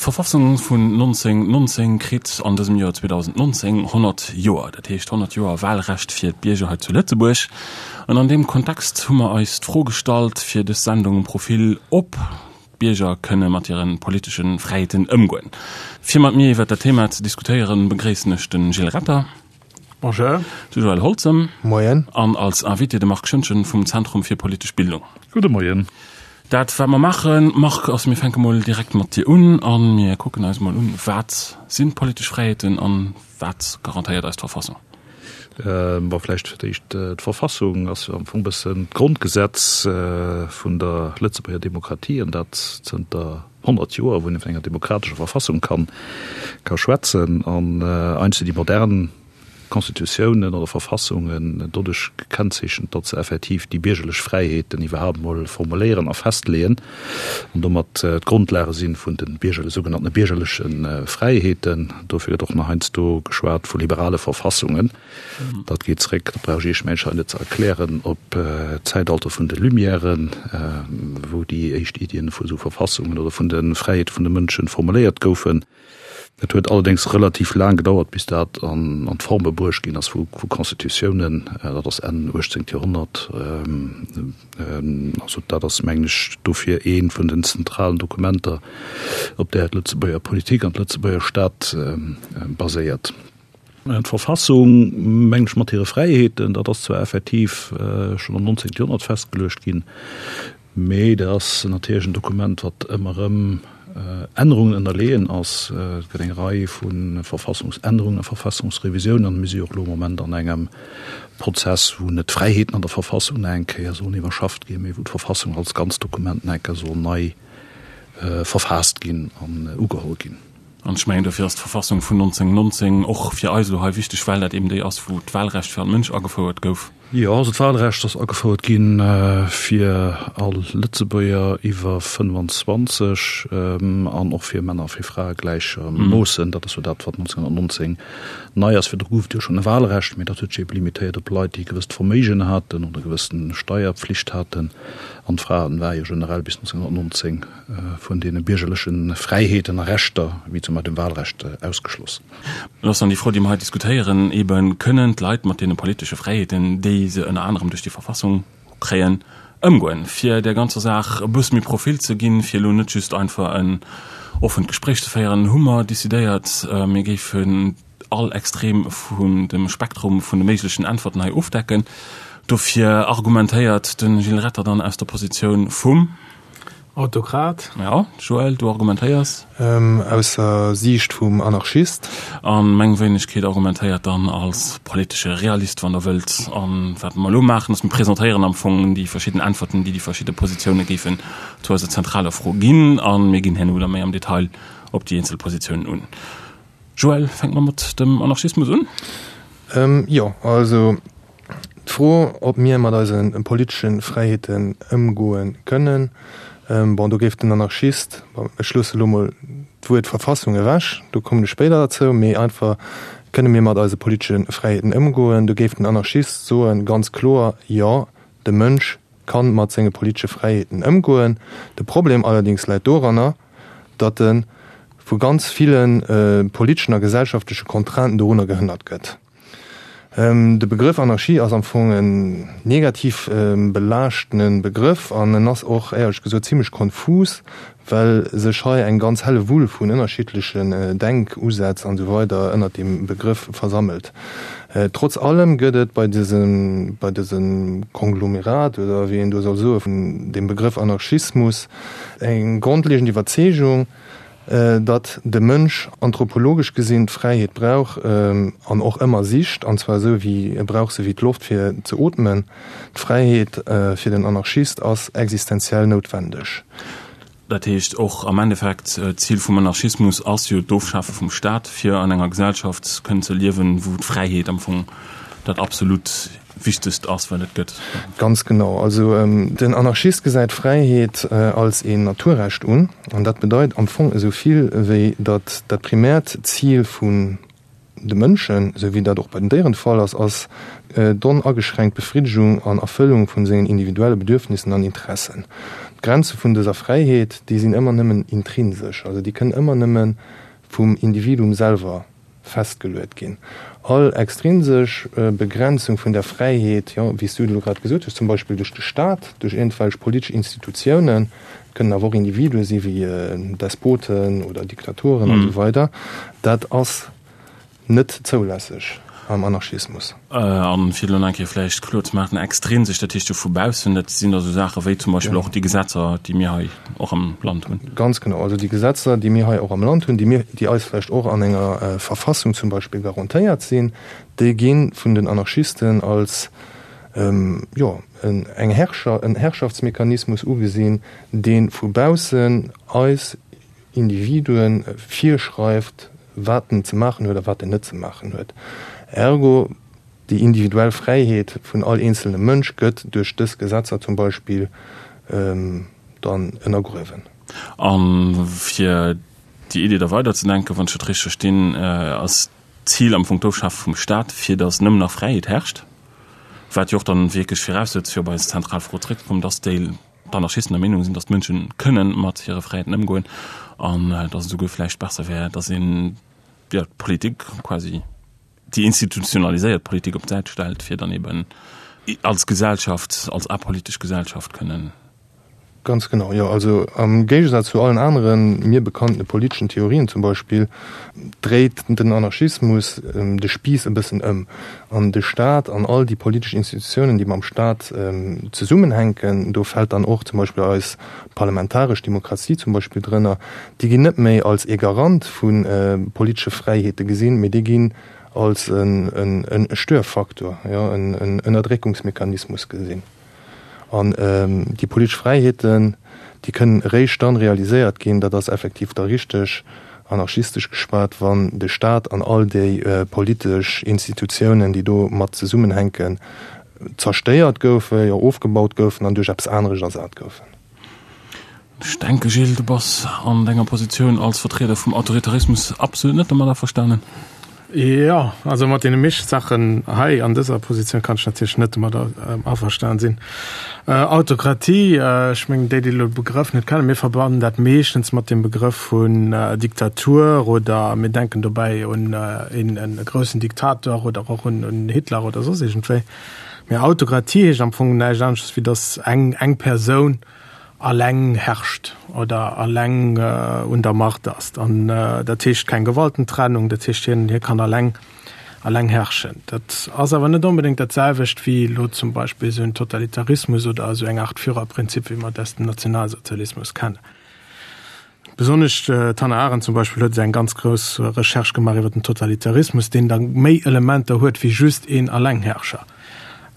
D'Verfassung vun 1919 kritt an dësem Joer 2019 100 Joer, dat heescht 100 Joer Wahlrecht fir d'Bierger hei zu Lëtzebuerg. An an deem Kontext hu mer eis d'Fro gestallt fir dës Sendung Profil, ob d'Bierger kënne mat hire politesche Fräiheeten ëmgoen. Fir mat mir iwwert dat Thema ze diskutéieren, begréissen ech de Gilles Retter. Bonjour. De Joël Holzem. Moien. An als Invité de Marc Schoentgen vum Zentrum fir politesch Bildung. Gudde Moien. Dat wat mer maachen, Marc, ass mir fänke mol direkt mat dir un a mir kucken eis mol un, wat sinn d'politesch Fräiheeten an wat garantéiert eis d'Verfassung? Bon, vläicht fir d'éischt, d'Verfassung ass jo am Fong e bëssen d'Grondgesetz vun der Lëtzebuerger Demokratie an dat zënter 100 Joer, wou een vun enger demokratescher Verfassung kann ka schwätzen. An eigentlech sinn déi modern Constitutiounen oder Verfassungen doduerch gekennzeechent, datt se effektiv déi biergerlech Fräiheeten iwwerhaapt emol formuléieren a festleeën an domat d'Grondlage si vun de biergerle sougenannte biergerleche Fräiheeten. Dofir gëtt och nach heiansdo geschwat vu liberale Verfassungen. Dat geet zréck, dat brauch ech Iech mengen ech hei net ze erklären, op d'Zäitalter vun de Lumièren, wou déi éischt Iddien vu esou Verfassungen oder vun de Fräiheete vun de Mënschen formuléiert goufen. Et huet allerdéngs relativ laang gedauert, bis dat an d'Forme bruecht ginn ass vu Constitutiounen. Dat ass Enn 18. Joerhonnert. Also dat ass, mengen ech, dofir ee vun den zentralen Dokumenter, op där d'Lëtzebuerger Politik an d'Lëtzebuerger Stad baséiert. D'Verfassung, mengen ech, mat hire Fräiheeten, dat ass zwar effektiv schonn am 19. Joerhonnert festgeluecht ginn, Mee dat ass natierlech en Dokument, wat ëmmer erëm Ännerungen ënnerleeën ass. Et gëtt eng Rei vu Verfassungsännerungen a Verfassungsrevisiounen an mir si jo och elo am Moment an engem Prozess, wou net d'Fräiheeten an der Verfassung nach eng Kéier sollen iwwerschafft ginn, mee wou d'Verfassung als ganz Dokument nach eng Kéier soll nei verfaasst ginn an ugeholl ginn. An ech mengen, dofir ass d'Verfassung vun 1919 och fir eis elo hei wichteg, well dat eben déi ass, wou d'Wahlrecht fir all Mënsch agefouert gouf. Jo, also d'Wahlrecht ass agefouert gi fir all Lëtzebuerger iwwer 25 an och fir Männer a fir Frae gläichermoossen. Dat ass jo dat, wat 1919 nei ass. Virdru gouf et jo schonn e Wahlrecht, mee dat huet sech ebe limitéiert op Leit, déi e gewësst Verméigen haten oder e gewëssen Steierpflicht haten. An d'Fraen ware jo generell bis 1919 vun deene biergerleche Fräiheeten a Rechter, wéi zum Beispill dem Wahlrecht, ausgeschloss. Et ass dann déi Fro, déi mer hei diskutéieren, eben, Kënnen d'Leit mat deene politesche Fräiheeten, déi se ënner anerem duerch déi Verfassung kréien, ëmgoen? Fir där ganzer Saach e bësse méi Profil ze ginn, fir elo net just einfach en offent Gespréich ze féieren, hu mer decidéiert, mir géifen all Extrem vun dem Spektrum vun de méiglechen Äntwerten hei ofdecken. Dofir argumentéiert de Gilles Retter dann aus der Positioun vum. Autokrat. Ja, Joël, du argumentéiers. Aus der Siicht vum Anarchist. A meng Wéinegkeet argumentéiert dann als politesche Realist, wann Der wëllt. A wat mer elo maachen, ass, mir presentéieren am Fong déi verschidden Äntwerten, déi déi verschidde Positioune géifen zu eiser zentraler Fro ginn. A mir ginn herno da méi am Detail op déi eenzel Positiounen un. Joël, fänke mer mat dem Anarchismus un? Jo, also D'Fro, ob mir mat eise politesche Fräiheeten ëmgoe kënnen, bon, do géif den Anarchist, bon, ech loosse elo mol d'Wuert Verfassung ewech, do kommen ech spéider derzou, mee einfach, kënne mir mat eise politesche Fräiheeten ëmgoen, do géif den Anarchist soen, ganz kloer, jo, de Mënsch ka mat senge politesche Fräiheeten ëmgoen. De Problem allerdéngs läit doranner, datt e vu ganz ville politeschen a gesellschaftleche Contrainten dorunner gehënnert gëtt. De Begrëff Anarchie ass am Fong en negativ belaaschtene Begrëff an en ass och éierlech gesot zimlech konfus, well sech hei eng ganz helle Wull vun ënnerschiddlechen Denkusätz an esou weider ënnert deem Begrëff versammelt. Trotz allem gëtt et bei dësem bei dësem Konglomerat, oder wéi een do soll soe vun deem Begrëff Anarchismus eng grondlegend Iwwerzeegung, datt de Mënsch anthropologesch gesinn d'Fräiheet brauch an och ëmmer sicht, an zwar esou wéi e brauch se wéi d'Loft fir ze ootmen. D'Fräiheet fir den Anarchist ass existenziell noutwendeg. Dat heescht och am Endeffekt, d'Zil vum Anarchismus ass jo d'Ofschafe vum Staat, fir an enger Gesellschaft kënnen ze liewen, wou d'Fräiheet am Fong dat absolut Wichtegst ass, wat et gëtt. Ganz genau. Also den Anarchist gesäit Fräiheet als een Naturrecht un, an dat bedeit am Fong esou vill wéi datt dat primäert Zil vun. de Mënschen, esou wéi dat och bei den Déieren de Fall ass, ass d'onageschränkt Befriddegung an Erfëllung vun sengen individuelle Bedürfnissen an Interessen. D'Grenze vun dëser Fräiheet, déi sinn ëmmer nëmmen intrinsesch, also déi kënnen ëmmer nëmme vum Individuum selwer festgeluet ginn. All extrinsesch Begrenzung vun der Fräiheet, jo, wéi s du et elo grad gesot hues, zum Beispill duerch de Staat, duerch iergendwelch politesch Institutiounen, et kënnen awer och Individue si wéi Despoten oder Diktaturen an esou weider, dat ass net zoulässeg am Anarchismus. A fir elo nach eng Kéier vläicht kloer ze maachen, extrinsesch, dat heescht jo vu baussen, dat sinn da sou Saache wéi zum Beispill och déi Gesetzer, déi mir hei och am Land hunn. Ganz genau, also déi Gesetzer, déi mir hei och am Land hunn, déi mir, déi eis vläicht och an enger Verfassung zum Beispill garantéiert sinn, déi gi vun den Anarchisten als, jo, eng Herrscher, en Herrschaftsmechanismus ugesinn, dee vu baussen eis Individuen virschreift, wat en ze maachen huet a wat en net ze maachen huet. Ergo, déi individuell Fräiheet vun all eenzelnem Mënsch gëtt duerch dës Gesetzer zum Beispill dann ënnergruewen. A fir déi Idee da weiderzedenken, wann ech dat richteg verstinn, ass d'Zil am Fong d'Ofschafe vum Staat, fir datt nëmmen nach Fräiheet herrscht, wat jo och dann wierklech viraussetzt, fir op eis zentral Fro zréckzekommen, datt déi d'Anarchisten der Meenung sinn, datt d'Mënsche kënnen mat hire Fräiheeten ëmgoen an datt et esouguer vläicht besser wär, datt een, jo, d'Politik quasi, déi institutionaliséiert Politik op d'Säit stellt, fir dann eben als Gesellschaft, als apolitesch Gesellschaft kënnen. Ganz genau, jo. Also am Géigesaz zu allen aneren mir bekannte politeschen Theorien zum Beispill, dréit den Anarchismus de Spiiss e bëssen ëm. An de Staat an all déi politesch Institutiounen, déi mam Staat zesummenhänken, do fält dann och zum Beispill eis parlamentaresch Demokratie zum Beispill drënner, déi ginn net méi als ee Garant vu politesche Fräiheete gesinn, mee déi ginn als e Störfaktor, jo, en Ënnerdréckungsmechanismus gesinn. An déi politesch Fräiheeten, déi kënnen eréischt dann realiséiert ginn, dat ass effektiv da richteg anarchistesch geschwat, wann de Staat an all déi politesch Institutiounen, déi do mat zesummenhänken, zerstéiert goufen, jo ofgebaut goufen an duerch eppes aneresch ersat goufen. Ech denke Gilles, du bass an denger Positioun als Vertrieder vum Autoritarismus absolut net domat averstanen. Jo, also mat deene meeschte Saachen hei an dëser Positioun kann ech natierlech net domat averstan sinn. Autokratie, ech mengen déi, déi elo de Begrëff net kennen, mir verbannen dat meeschtens mat dem Begrëff vun Diktatur oder mir denken dobäi un een groussen Diktator oder och un Hitler oder soss iergendwéi. Mee Autokratie heescht am Fong näischt anesches wéi datt eng eng Persoun alleng herrscht oder alleng un der Macht ass. An dat heescht keng Gewaltentrennung, dat heescht hien hie kann alleng alleng herrschen. Dat ass awer net onbedéngt dat selwecht wéi elo zum Beispill esou en Totalitarismus oder esou eng Art Führerprinzip, wéi mer et aus dem Nationalsozialismus kennen. Besonnesch d'Hannah Arendt zum Beispill huet eng ganz grouss Recherche gemaach iwwer den Totalitarismus, deen da méi Elementer huet wéi just een Allengherrscher.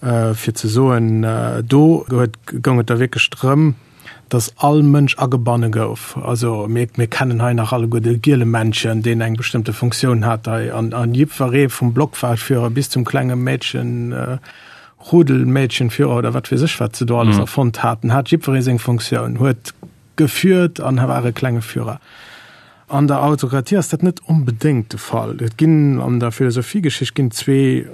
Fir ze soen, do huet goung et da wierklech drëm, datt all Mënsch agebanne gouf. Also mir mir kennen hei nach alleguer de Gielemännchen, deen eng bestëmmte Funktioun hat hei an an jiddweree vum Blockwahlführer bis zum klenge Mädchen, Rudelmädchenführer oder wat weess ech wat se do alles erfonnt haten, hat jiddweree seng Funktioun, huet Geführt an war e klenge Führer. An der Autokratie ass dat net onbedéngt de Fall. Et ginn an der Philosophiegeschicht ginn zwee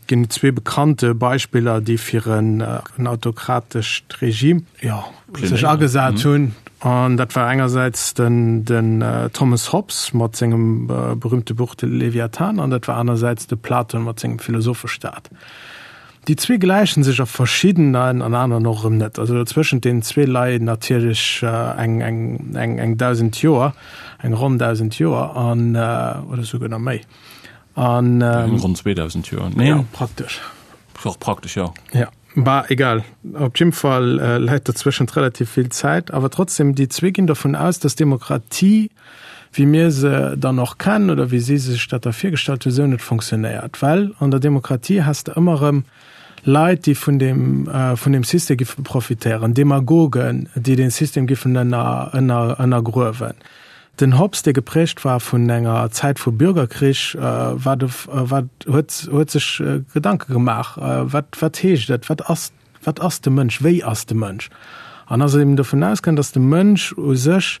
ginn zwee bekannte Beispiller, déi fir en en autokratescht Regime jo sech agesat hunn. An dat war engersäits den den Thomas Hobbes mat sengem berühmte Buch De Leviathan an dat war anersäits de Platon mat sengem Philosophestaat. Déi zwee gläichen sech a verschiddenen an aneren och erëm net. Also zwëschent deenen zwee leien natierlech eng, eng, eng, eng 1.000 Joer, eng ronn 1.000 Joer an, oder souguer nach méi. An. Eng ronn 2.000 Joer, nee? Ja, praktesch. Och praktesch, jo. Ja, bah, egal. Op jidde Fall läit dozwëschent relativ vill Zäit. Awer trotzdem, déi zwee ginn dovun aus, dass Demokratie, wéi mir se dann och kennen oder wéi si sech dat da virgestallt hunn, esou net fonctionnéiert. Well an der Demokratie has de ëmmer erëm Leit, déi vun deem, vun deem System giffe profitéieren, Demagogen, déi dee System giffen ënner, ënner, ënnergruewen. Den Hobbes, dee geprägt war vun enger Zäit vu Bürgerkrich, war de, war, huet, huet sech Gedanke gemaach, wat, wat heescht et, wat ass Wat ass de Mënsch? Wéi ass de Mënsch? An ass eben dovun ausgaangen, datt de Mënsch u sech.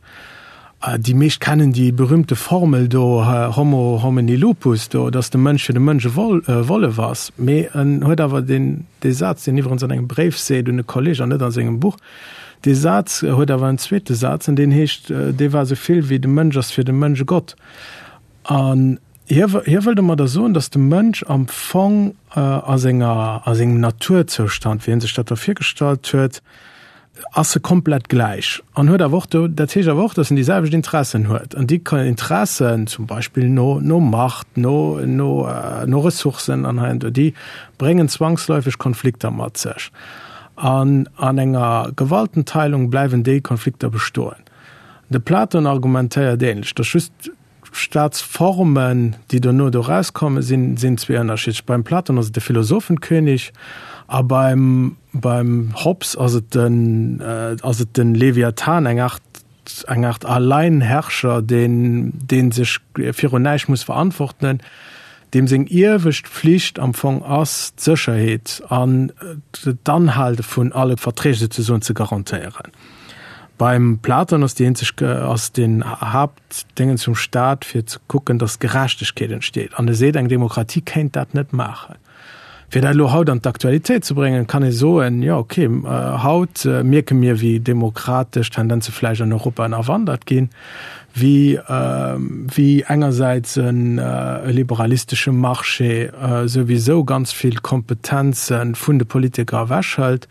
Déi meescht kennen déi berühmte Formel do, Homo homini lupus, do, dass de Mënsch fir de Mënsch e Wollef ass. Mee en huet awer deen, dee Saz, deen iwwerens an engem Bréif seet un e Kolleg an net a sengem Buch, dee Saz huet awer en zweete Saz an deen heescht, dee war esou vill wéi de Mënsch ass fir de Mënsch e Gott. An hie, hie wëll domadder soen, dass de Mënsch am Fong a senger, a sengem Naturzoustand, wéi hie sech dat da virgestallt huet, ass e komplett gläich an huet awer och do, dat heescht awer och, datt en déi selwecht Interessen huet an déi Interessen zum Beispill no no Macht, no no no Ressourcen an hei an do, déi bréngen zwangsläufeg Konflikter mat sech an an enger Gewaltenteilung bleiwen déi Konflikter bestoen. De Platon argumentéiert ähnlech, datt just Staatsformen, déi dono do rauskomme sinn, sinn zwee ënnerschiddlech. Beim Platon ass et de Philosophenkönig a beim, beim Hobbes ass et den, ass et den Leviathan, eng Art, eng Art Alleinherrscher, deen, dee sech virun näischt muss verantwortenen, deem seng iewescht Pflicht am Fong ass, d'Sécherheet an d'Anhale vun alle Verträg souzesoen ze garantéieren. Beim Platon ass déi eenzeg, ass den Haupt, Déngen zum Staat, fir ze kucken, datt Gerechtegkeet entsteet. An e seet, eng Demokratie kéint dat net maachen. Fir dat elo haut an d'Aktualitéit ze bréngen, kann ee soen, jo okay, haut mierke mir, wéi demokratesch Tendenze vläicht an Europa ënnerwandert ginn, wéi, wéi engersäits e liberalistesche Marché souwisou ganz vill Kompetenze vun de Politiker ewechhëlt,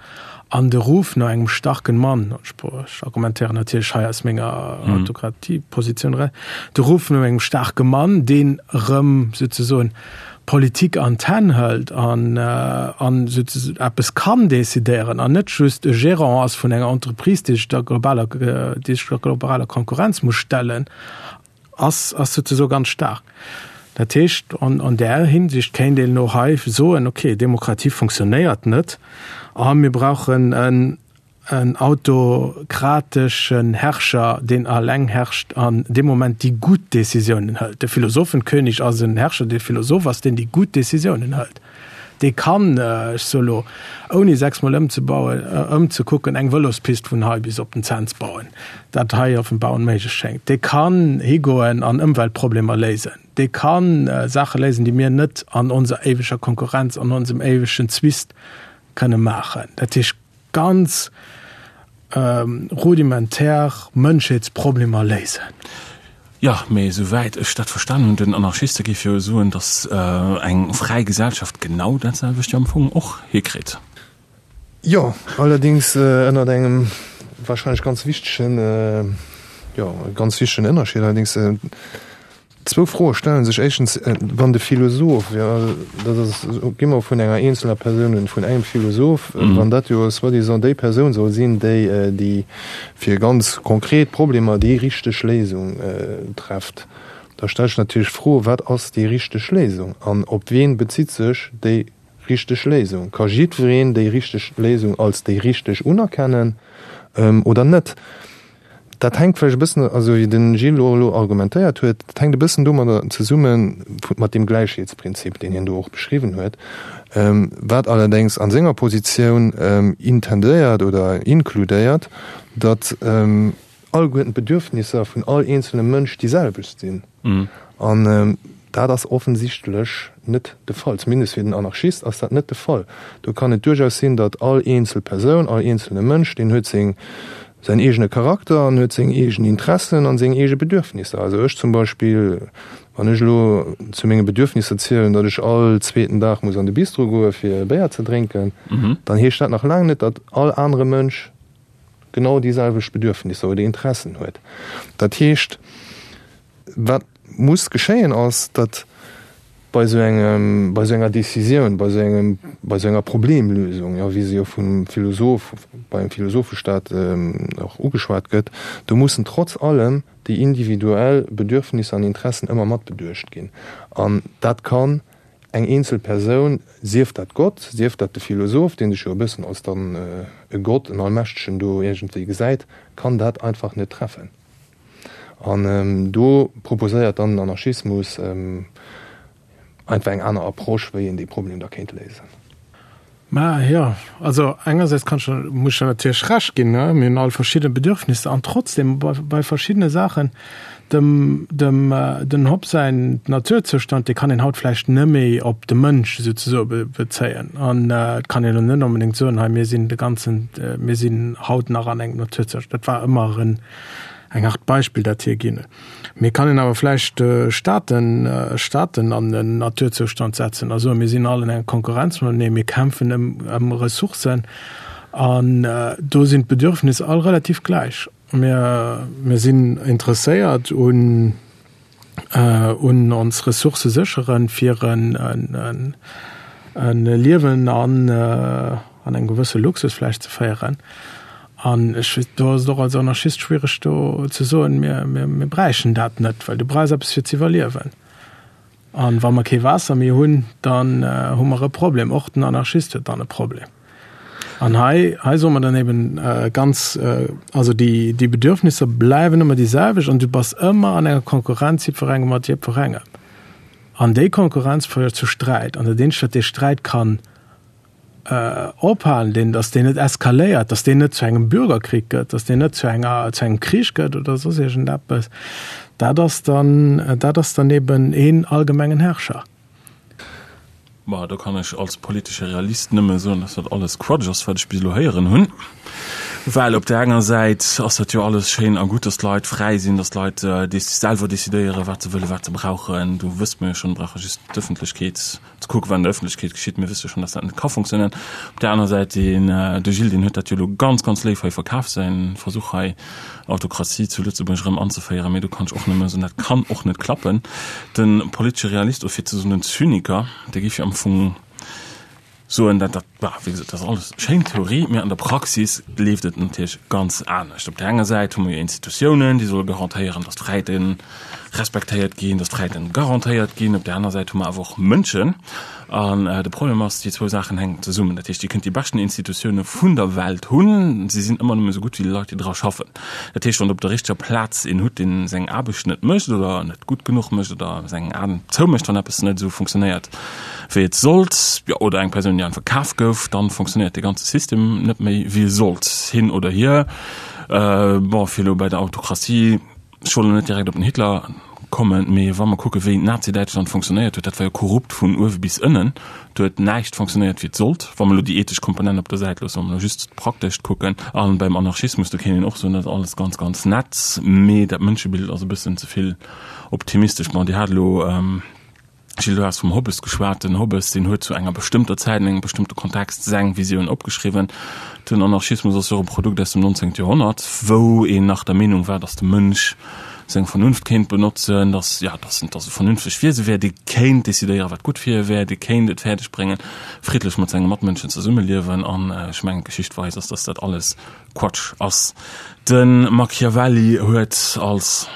An de Ruf no engem starken Mann, ech argumentéieren natierlech hei aus menger Autokratiepositioun eraus, de Ruf no engem staarke Mann, deen erëm souzesoen Politik an d'Hänn hëlt an an eppes kann decidéieren an net just e Gérant ass vun enger Entreprise, déi sech der globaler, déi sech der globaler Konkurrenz muss stellen, ass ass souzesoe ganz staark. Dat heescht, an an där Hinsicht kéint een elo hei soen, okay, Demokratie funktionéiert net a mir brauchen en en autokrateschen Herrscher, deen alleng herrscht an dee Moment déi gutt Décisiounen hëlt. De Philosophenkönig ass en Herrscher, dee Philosoph ass, deen déi gutt Décisiounen hëlt. Dee kann, ech soe lo, ouni sechsmol ëmzebauen, ëmzekucken, eng Vëlospist vun hei bis op den Cents bauen, dat hei offenbar onméiglech schéngt. Dee kann higoen an Ëmweltproblemer léisen. Dee ka Saache léisen, déi mir net an onser éiweger Konkurrenz, an onsem éiwegen Zwist kënne maachen. Dat heescht, ganz rudimentär Mënschheetsproblemer léisen. Jo, mee esou wäit ech dat verstan hunn, den Anarchiste géif jo soen, datt eng fräi Gesellschaft genau dat selwecht jo am Fong och hikritt. Jo, allerdéngs ënnert engem wahrscheinlech ganz wichtegen, jo, ganz wichtegen Ënnerscheed allerdéngs. Zwou Froe stellen sech. Éischtens, wann de Philosoph, jo, dat ass, gi mer vun enger eenzelner Persoun un, vun engem Philosoph, wann dat jo soi-disant déi Persoun soll sinn, déi déi fir ganz konkret Problemer déi richteg Léisung trefft, da stellt sech natierlech d'Fro, Wat ass déi richteg Léisung an op wien bezitt sech déi richteg Léisung? Ka jiddwereen déi richteg Léisung als déi richteg unerkennen oder net? Dat hänkt vläicht e bëssen, also wéi de Gilles och elo argumentéiert huet, dat hänkt e bëssen domadder zesumme mat deem Gläichheetsprinzip, deen hien do och beschriwwen huet, wat allerdéngs a senger Positioun intendéiert oder inkludéiert, datt alleguerten d'Bedürfnisser vun all eenzelnem Mënsch déi selwecht sinn. An dat ass offensichtlech net de Fall. Zumindest fir den Anarchist ass dat net de Fall. Do kann et duerchaus sinn, datt all eenzel Persoun, all eenzelne Mënsch, deen huet seng, säin eegene Charakter an huet seng eegen Interessen an seng eege Bedürfnisser. Also ech zum Beispill, wann ech elo zu menge Bedürfnisser zielen, datt ech all zweeten Dag muss an de Bistro goe fir e Béier ze drénken, dann heescht dat nach laang net, datt all anere Mënsch genau déi selwecht Bedürfnisser oder Interessen huet. Dat heescht, Wat muss geschéien ass, datt bei esou engem, bei esou enger Décisioun, bei esou engem, bei esou enger Problemlösung, jo, wéi se jo vum Philosoph, beim Philosophestaat och ugeschwat gëtt, do mussen trotz allem déi individuell Bedürfnisser an Interessen ëmmer mat beduecht ginn. An dat kann eng eenzel Persoun, sief dat Gott, sief dat de Philosoph, dee sech jo e bëssen als dann e Gott, en Allmächtegen do iergendwéi gesäit, kann dat einfach net treffen. An do proposéiert dann den Anarchismus einfach eng aner Approche, wéi een dee Problem da kéint léisen. Mä jo, also engersäits kann ech, muss ech der natierlech Recht ginn, ne, mir hunn all verschidde Bedürfnisser an trotzdem bei, bei verschiddene Saachen, dem, dem, den Hobbes säin Naturzoustand, dee kann een haut vläicht net méi op de Mënsch souzesoe be, bezéien. An et kann een elo net onbedéngt soen, hei mir sinn de ganzen, mir sinn haut nach an engem Naturzoustand. Dat war ëmmer en, eng Art Beispill, dat hie ginn huet. Mee kann een awer vläicht Staaten, Staaten an en Naturzoustand setzen a soen, mir sinn all an enger Konkurrenz matenee, mir kämpfen ëm, ëm Ressourcen an do sinn d'Bedürfnisser all relativ gläich. Mir, mir sinn interesséiert un, un ons Ressourcë sécheren, fir en, en, en Liewen an, an engem gewësse Luxus vläicht ze féieren. An ech, do ass et och als Anarchist schwiereg do ze soen, mir, mir, mir bräichen dat net, well du brauchs eppes fir ze iwwerliewen. An wa mer kee Waasser méi hunn, dann hu mer e Problem. Och den Anarchist huet dann e Problem. An hei, hei soe mer dann eben ganz, also déi, déi Bedürfnisser bleiwen ëmmer déi selwecht an du bass ëmmer an enger Konkurrenz jiddwerengem mat jiddwerengem. An déi Konkurrenz féiert zu Sträit. An dat eenzegt, wat dee Sträit kann ophalen, deen, datt deen net eskaléiert, datt deen net zu engem Bürgerkrieg gëtt, datt deen net zu enger, zu engem Krich gëtt oder soss iergendeppes, dat ass dann, dat ass dann eben een allgemengen Herrscher. Bah, do kann ech als politesche Realist nëmme soen, dass dat alles Quatsch ass, wat ech bis elo héieren hunn. Well op där enger Säit ass dat jo alles schéin a gutt, dass d'Leit fräi sinn, dass d'Leit selwer decidéieren, wat se wëllen, wat se brauchen. Do wësst mer jo schonn, brauche just d'Ëffentlechkeet ze kucken, wat an der Ëffentlechkeet geschitt. Mir wësse jo schonn, dass dat net ka funktionéieren. Op där aner Säit, deen, de Gilles, deen huet dat jo elo ganz, ganz léif hei verkaf, säi Versuch hei, Autokratie zu Lëtzebuerg erëm anzeféieren. Mee do kann ech och nëmme soen, dat kann och net klappen. De politesche Realist, oder fir ze soen den Zyniker, dee géif jo am Fong soen, dat, dat, bah, wéi gesot, dat ass alles schéin Theorie, mee an der Praxis leeft et natierlech ganz anescht. Op där enger Säit hu mer jo Institutiounen, déi solle garantéieren, dass d'Fräiheete respektéiert ginn, dass d'Fräiheeten garantéiert ginn. Op där aner Säit hu mer awer och Mënschen. An de Problem ass, déi zwou Saachen hänken zesummen. Dat heescht, Dir kënnt déi beschten Institutioune vun der Welt hunn, se sinn ëmmer nëmme esou gutt wéi déi Leit, déi dra schaffen. Dat heescht, wann Der op der richteger Plaz een hutt, dee seng Aarbecht net mécht oder net gutt genuch mécht oder seng Aen zoumécht, wann eppes net esou funktionéiert, wéi et sollt, jo, oder eng Persoun, déi einfach kaf gouf, dann funktionéiert dee ganze System net méi, wéi e sollt. Hin oder hier. Bon, fir elo bei der Autokratie, ech wollt elo net direkt op den Hitler kommen, mee wa mer kucken, wéi Nazi-Däitschland funktionéiert huet, dat war jo korrupt vun uewe bis ënnen. Do huet näischt funktionéiert, wéi et sollt, wa mer elo déi ethesch Komponent op der Säit loossen, wa mer elo just d'Praktescht kucken. A beim Anarchismus, do kéint een och soen, dat ass alles ganz, ganz nett, mee dat Mënschebild ass e bëssen ze vill optimistesch. Bon, Dir hat elo. Gilles, du has vum Hobbes geschwat. Den Hobbes, deen huet zu enger bestëmmter Zäit, an engem bestëmmte Kontext seng Visioun opgeschriwwen. Den Anarchismus ass jo och e Produkt aus dem 19. Joerhonnert, wou een nach der Meenung war, datt de Mënsch seng Vernunft kéint benotzen, datt, ja, datt en, datt e vernünftegt Wiese wär, dee kéint decidéieren, wat gutt fir hie wär, dee kéint et fäerdeg bréngen, friddlech mat senge Matmënschen zesummeliewen. An ech mengen, d'Geschicht weist ass, datt dat alles Quatsch ass. De Machiavelli huet als.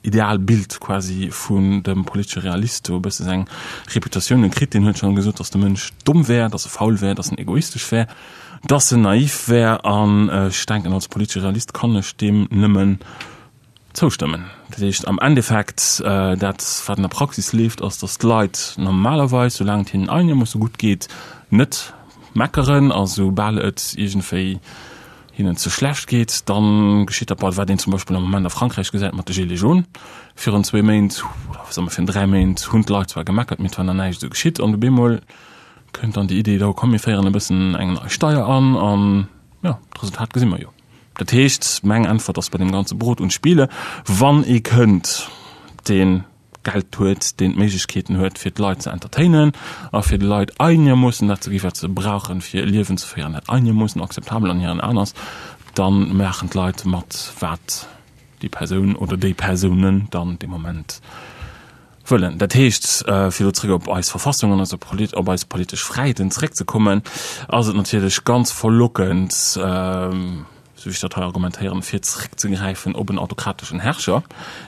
Idealbild quasi vun dem politesche Realist do e bësse seng Reputatioun kritt. Deen huet schonn gesot, datt de Mënsch domm wär, datt e faul wär, datt en egoistesch wär, datt en naiv wär. An ech denken, als politesche Realist kann ech deem nëmmen zoustëmmen. Dat heescht am Endeffekt, dat wat an der Praxis leeft, ass, datt d'Leit normalerweis, soulaang et hinnen einermoosse gutt geet, net meckeren a soubal et iergendwéi hinnen ze schlecht geet, dann geschitt dat bal, wat een zum Beispill am Moment a Frankräich gesäit mat de Gilets jaunes. Virun zwéi Méint, oder soe mer virun dräi Méint, hunn d'Leit zwar gemeckert, mee et war nach näischt esou geschitt. An op eemol kënnt dann déi Idee, da komm mir féieren e bëssen eng nei Steier an, an jo, d'Resultat gesi mer jo. Dat heescht, meng Äntwert ass bei deem ganze Brot und Spiele, wann ee kënnt, deen Geld huet, deen d'Méiglechkeeten huet, fir d'Leit ze entertainen a fir de Leit einermoossen dat ze gi wat se brauchen, fir e Liewen ze féieren, dat einermoossen akzeptabel an hiren Aen ass, da maachen d'Leit mat, wat déi Persoun oder déi Persounen dann dee Moment wëllen. Dat heescht, fir elo zréck op eis Verfassung an op eis politesch Fräiheeten zréckzekommen, ass et natierlech ganz verlockend, sou wéi ech dat hei argumentéieren, fir zréckzegräifen op en autokrateschen Herrscher.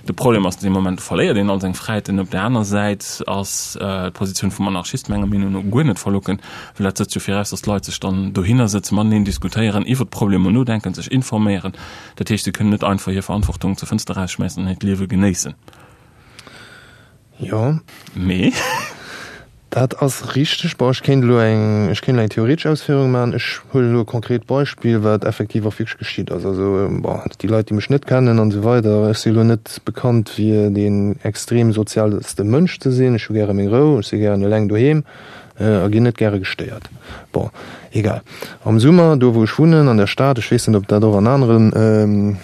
De Problem ass, dee Moment verléiert een all seng Fräiheeten. Op där aner Säit ass d'Positioun vum Anarchist menger Meenung no guer net verlockend, well dat setzt jo viraus, datt d'Leit sech dann dohinner sëtzen, mateneen diskutéieren, iwwert d'Problemer nodenken, sech informéieren. Dat heescht, se kënnen net einfach hir Verantwortung zur Fënster erausschmäissen an hiert Liewe genéissen. Jo. Mee? Dat ass richteg. Bon, ech kéint elo eng, ech kéint elo eng theoretesch Ausféierung maachen. Ech huelen elo e konkret Beispill, wat effektiv och wierklech geschitt ass. Also, bon, déi Leit, déi mech net kennen an esou weider, ech si elo net bekannt fir deen extrem sozialste Mënsch ze sinn. Ech hu gäre meng Rou, ech si gären eleng doheem a ginn net gäre gestéiert. Bon, egal. Am Summer, do wou ech wunnen, an der Stad, ech weess net, ob dat och an aneren,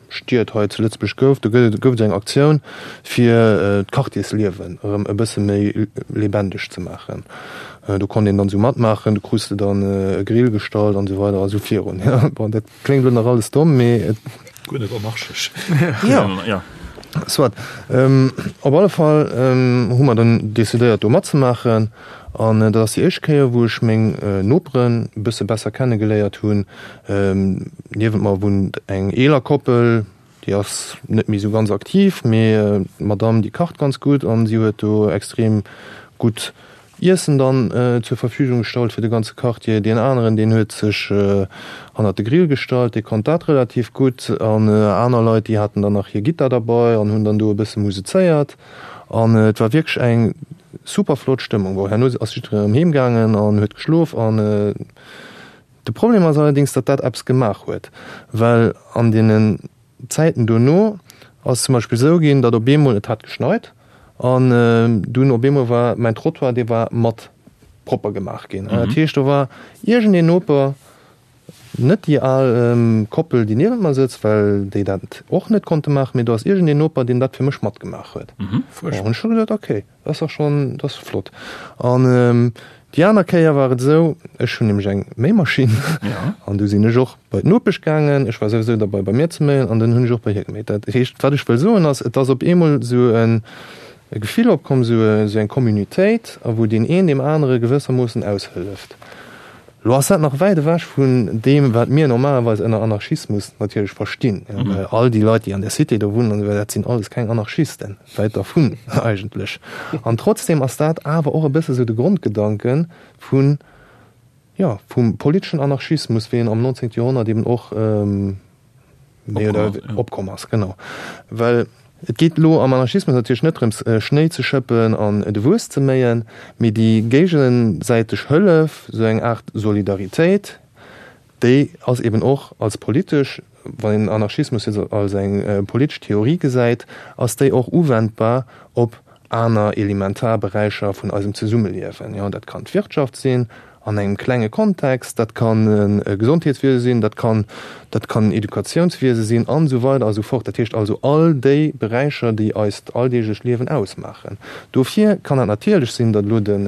Stied hei zu Lëtzebuerg gouf. Do gëtt et, gouf et eng Aktioun, fir d'Quartiersliewen erëm e bësse méi lebendeg ze maachen. Do konnt een dann esou matmaachen, do krus de dann e Grill gestallt an esou weider a sou virun. Bon, dat kléngt elo nach alles domm, mee et. Guer net anarchesch. Jo, soit. Op alle Fall hu mer dann decidéiert, do matzemaachen. An dat ass déi éischt Kéier, wou ech meng Noperen e bësse besser kennegeléiert hunn. Niewent mer wunnt eng eeler Koppel, déi ass net méi esou ganz aktiv, mee d'Madame déi kacht ganz gutt an si huet do extrem gutt Iessen dann zur Verfügung gestallt fir de ganze Quartier. Deen aneren, deen huet sech hannert de Grill gestallt, dee konnt dat relativ gutt. An aner Leit, déi haten dann nach hir Gittar derbei an hunn dann do e bësse musezéiert. An et war wierklech eng super flott Stëmmung. Bon, herno ass jiddereen erëm heem gaangen an huet geschlof. An de Problem ass allerdéngs, datt dat eppes gemaach huet, well an deenen Zäiten dono ass zum Beispill esou ginn, datt op eemol, et hat geschneit an dunn op eemol war mäin Trottoir, dee war mat propper gemaach ginn. Dat heescht, do war iergendeen Noper, Net déi al Koppel, déi niewent mer sëtzt, well déi dat och net konnte maachen, mee do ass iergendeen Noper, deen dat fir mech matgemaach huet. Bon, hunn ech scho gesot, okay, dat ass dach schonn, dat ass flott. An déi aner Kéier war et esou, ech hunn nämlech eng Méimaschinn an du sinn ech och bei d'Nopesch gaangen, ech war souwisou derbei bei mir ze méien an dann hunn ech och bei hir geméit. Dat heescht, wat ech wëll soen ass, et ass op eemol esou e Gefill opkomm, esou eng Communautéit, a wou deen een deem anere gewëssermoossen aushëlleft. Lo ass dat nach wäit ewech vun deem, wat mir normalerweis ënner Anarchismus natierlech verstinn. Well all déi Leit, déi an der Cité do wunnen an esou weider, dat sinn alles keng Anarchisten, wäit dervun eigentlech. An trotzdem ass dat awer och e bësse sou de Grondgedanke vun, jo, vum politeschen Anarchismus, wéi en am 19. Joerhonnert eben och, méi oder opkomm ass, genau. Well et geet elo am Anarchismus natierlech net drëms, Schnéi ze schëppen an de Wues ze méien, mee déi géigesäiteg Hëllef, esou eng Aart Solidaritéit, déi ass eben och als politesch, wann een Anarchismus jetzt als eng politesch Theorie gesäit, ass déi och uwendbar op aner elementar Beräicher vun eisem Zesummeliewen. Jo, dat kann d'Wirtschaft sinn, an engem klenge Kontext, dat kann e Gesondheetswiese sinn, dat kann, dat kann Educatiounswiese sinn an esou weider a sou fort. Dat heescht also all déi Beräicher, déi eist alldeeglecht Liewen ausmaachen. Dofir kann et natierlech sinn, datt elo den,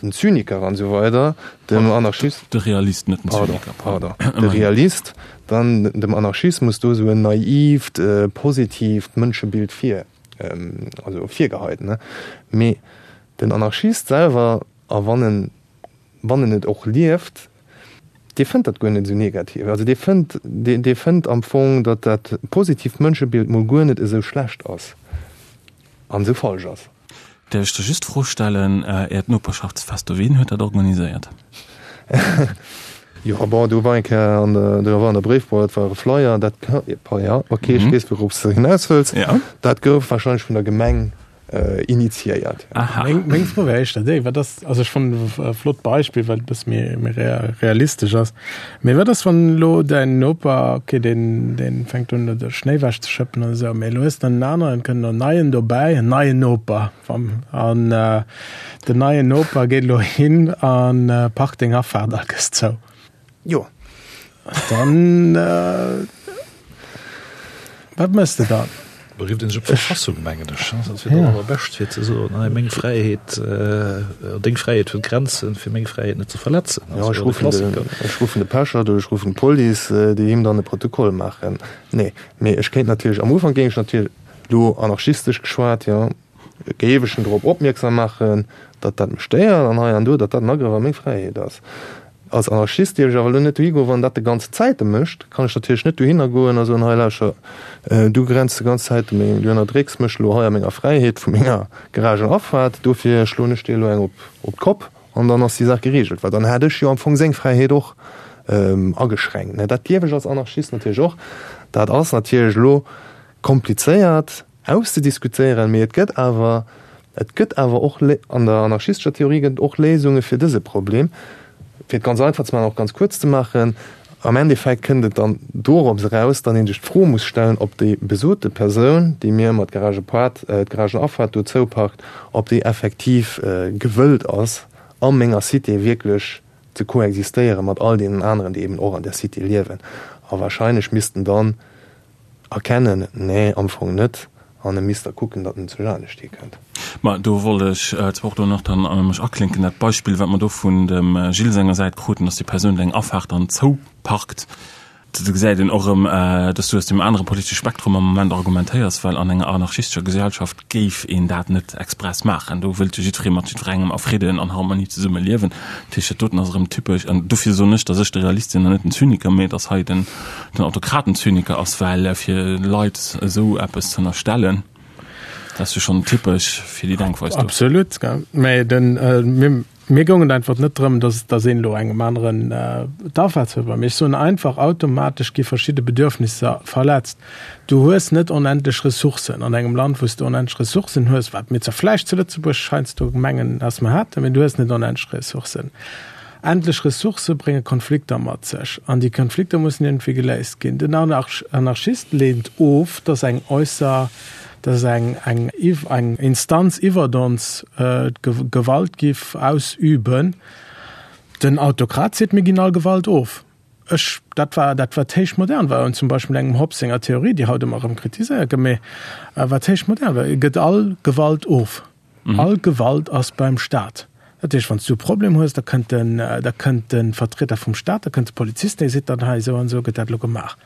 den Zyniker an esou weider dem Anarchist. De Realist, net den Zyniker, pardon. Pardon, de Realist dann dem Anarchismus do esou en naiivt, positiivt Mënschebild vir, also virgeheit, ne. Mee den Anarchist selwer A wann en, wann en et och lieft, dee fënnt dat guer net esou negativ. Also dee fënnt, dee, dee fënnt am Fong, datt dat positiivt Mënschebild mol guer net esou schlecht ass an esou falsch ass. Däerf ech der just d'Fro stellen, Äert Noperschaftsfest do, wien huet dat organiséiert? Jo, bon, do war eng Kéier an der, do war an der Bréifboîte war e Flyer, dat, jo, ok, ech weess, wourops de hinaus wëlls. Dat gouf wahrscheinlech vun der Gemeng initiéiert. Aha. Meng, meng Fro wär éischter déi, wat ass, also ech fannen e flott Beispill, well et e bësse méi, méi realistesch ass. Mee wat ass, wann elo däin Noper, okay, deen, deen fänkt un, de Schnéi wech ze schëppen oder esou, mee elo hues de en aneren, et kënnt en neien dobäi, en neien Noper, an den neien Noper geet elo hin a parkt deng Afaart a gëss zou. Jo. Dann, wat méchs de dann? Da rifft een sech op d'Verfassung, mengen ech. Dat wier dat Allerbescht, fir ze soen, hei, meng Fräiheet, deng Fräiheet huet Grenzen, fir meng Fräiheet net ze verletzen. Jo, ech ruffen de, ech ruffen de Pechert oder ech ruffen d'Police, déi him dann e Protokoll maachen. Nee, mee ech kéint natierlech, am Ufank géing ech natierlech, elo anarchistesch geschwat, jo, Géif ech en drop opmierksam maachen, datt dat mech stéiert an hei an do, datt dat en Agrëff a meng Fräiheet ass. Als Anarchist dierf ech awer elo net dohi goen, wann dat de ganze Zäite mécht, kann ech natierlech net dohinner goen a soen, hei lauscher, du grenz de ganz Zäite meng, du ënnerdrécks mech elo hei a menger Fräiheet vu menger Garagenafaart, dofir schloen ech dir elo eng op op d'Kopp an dann ass déi Saach gereegelt. Well dann hätt ech jo am Fong seng Fräiheet och ageschränkt. Dat dierf ech als Anarchist natierlech och. Dat ass natierlech elo komplizéiert. Auszediskutéieren, mee et gëtt awer. Et gëtt awer och, an der anarchistescher Theorie gëtt et och Léisunge fir dëse Problem. Fir et ganz einfach ze maachen, och ganz kuerz ze maachen, Am Endeffekt kënnt et dann dorops eraus, datt ee sech d'Fro muss stellen, ob déi besote Persoun, déi mir mat Garagepart, d'Garagenafaart do zouparkt, ob déi effektiv gewëllt ass, a menger Cité wierklech ze koexistéiere mat all deenen aneren, déi eben och an där Cité liewen. A wahrscheinlech missten dann Erkennen? Nee, am Fong net. An e misst da kucken, datt en zu anescht hikënnt. Ma do wollt ech zwar och do nach dann mech aklinken. Dat Beispill, wat mer do vun dem Gilles senger Säit kruten, datt déi Persoun eng Afaart dann zouparkt, do gesäit een och erëm, datt s du aus deem anere politesche Spektrum am Moment argumentéiers, well an enger anarchistescher Gesellschaft géif een dat net express maachen. Do wëllt jo jiddweree mat jiddwerengem a Fridden an Harmonie zesumme liewen. Dat heescht, dat doten ass erëm typesch. An dofir soen ech, datt ech de Realist sinn an net den Zyniker, mee datt hei den Autokraten-Zyniker ass, well fir Leit esou eppes ze ënnerstellen, dat ass jo schonn typesch fir déi Denkweis do. Absolut, gell. Mee den, mir, Mir goung et einfach net drëm, dass, dass een elo engem aneren d'Afaart huet. Mee ech soen einfach, automatesch gi verschidde Bedürfnisser verletzt. Du hues net onendlech Ressourcen an engem Land, wou s de onendlech Ressourcen hues, wat mir zwar vläicht zu Lëtzebuerg heiansdo mengen, dass mer hätten, mee du hues net onendlech Ressourcen. Endlech Ressourcë brénge Konflikter mat sech an déi Konflikter mussen iergendwéi geléist ginn. Den Anarchist leent of, dass eng äusser dass eng, eng, eng Instanz iwwert ons d'Gewalt giff ausüben. Den Autokrat seet, mir ginn all Gewalt of. Ech, dat war dat wat héich modern war, und zum Beispill engem Hobbes senger Theorie, déi haut ëmmer erëm kritiséiert gëtt, mee wat héich modern war, e gëtt all Gewalt of. All Gewalt ass beim Staat. Dat heescht, wann s du e Problem hues, da kënnt den, da kënnt de Vertrieder vum Staat, da kënnt de Polizist, dee seet dann, hei esou an esou gëtt dat elo gemaach.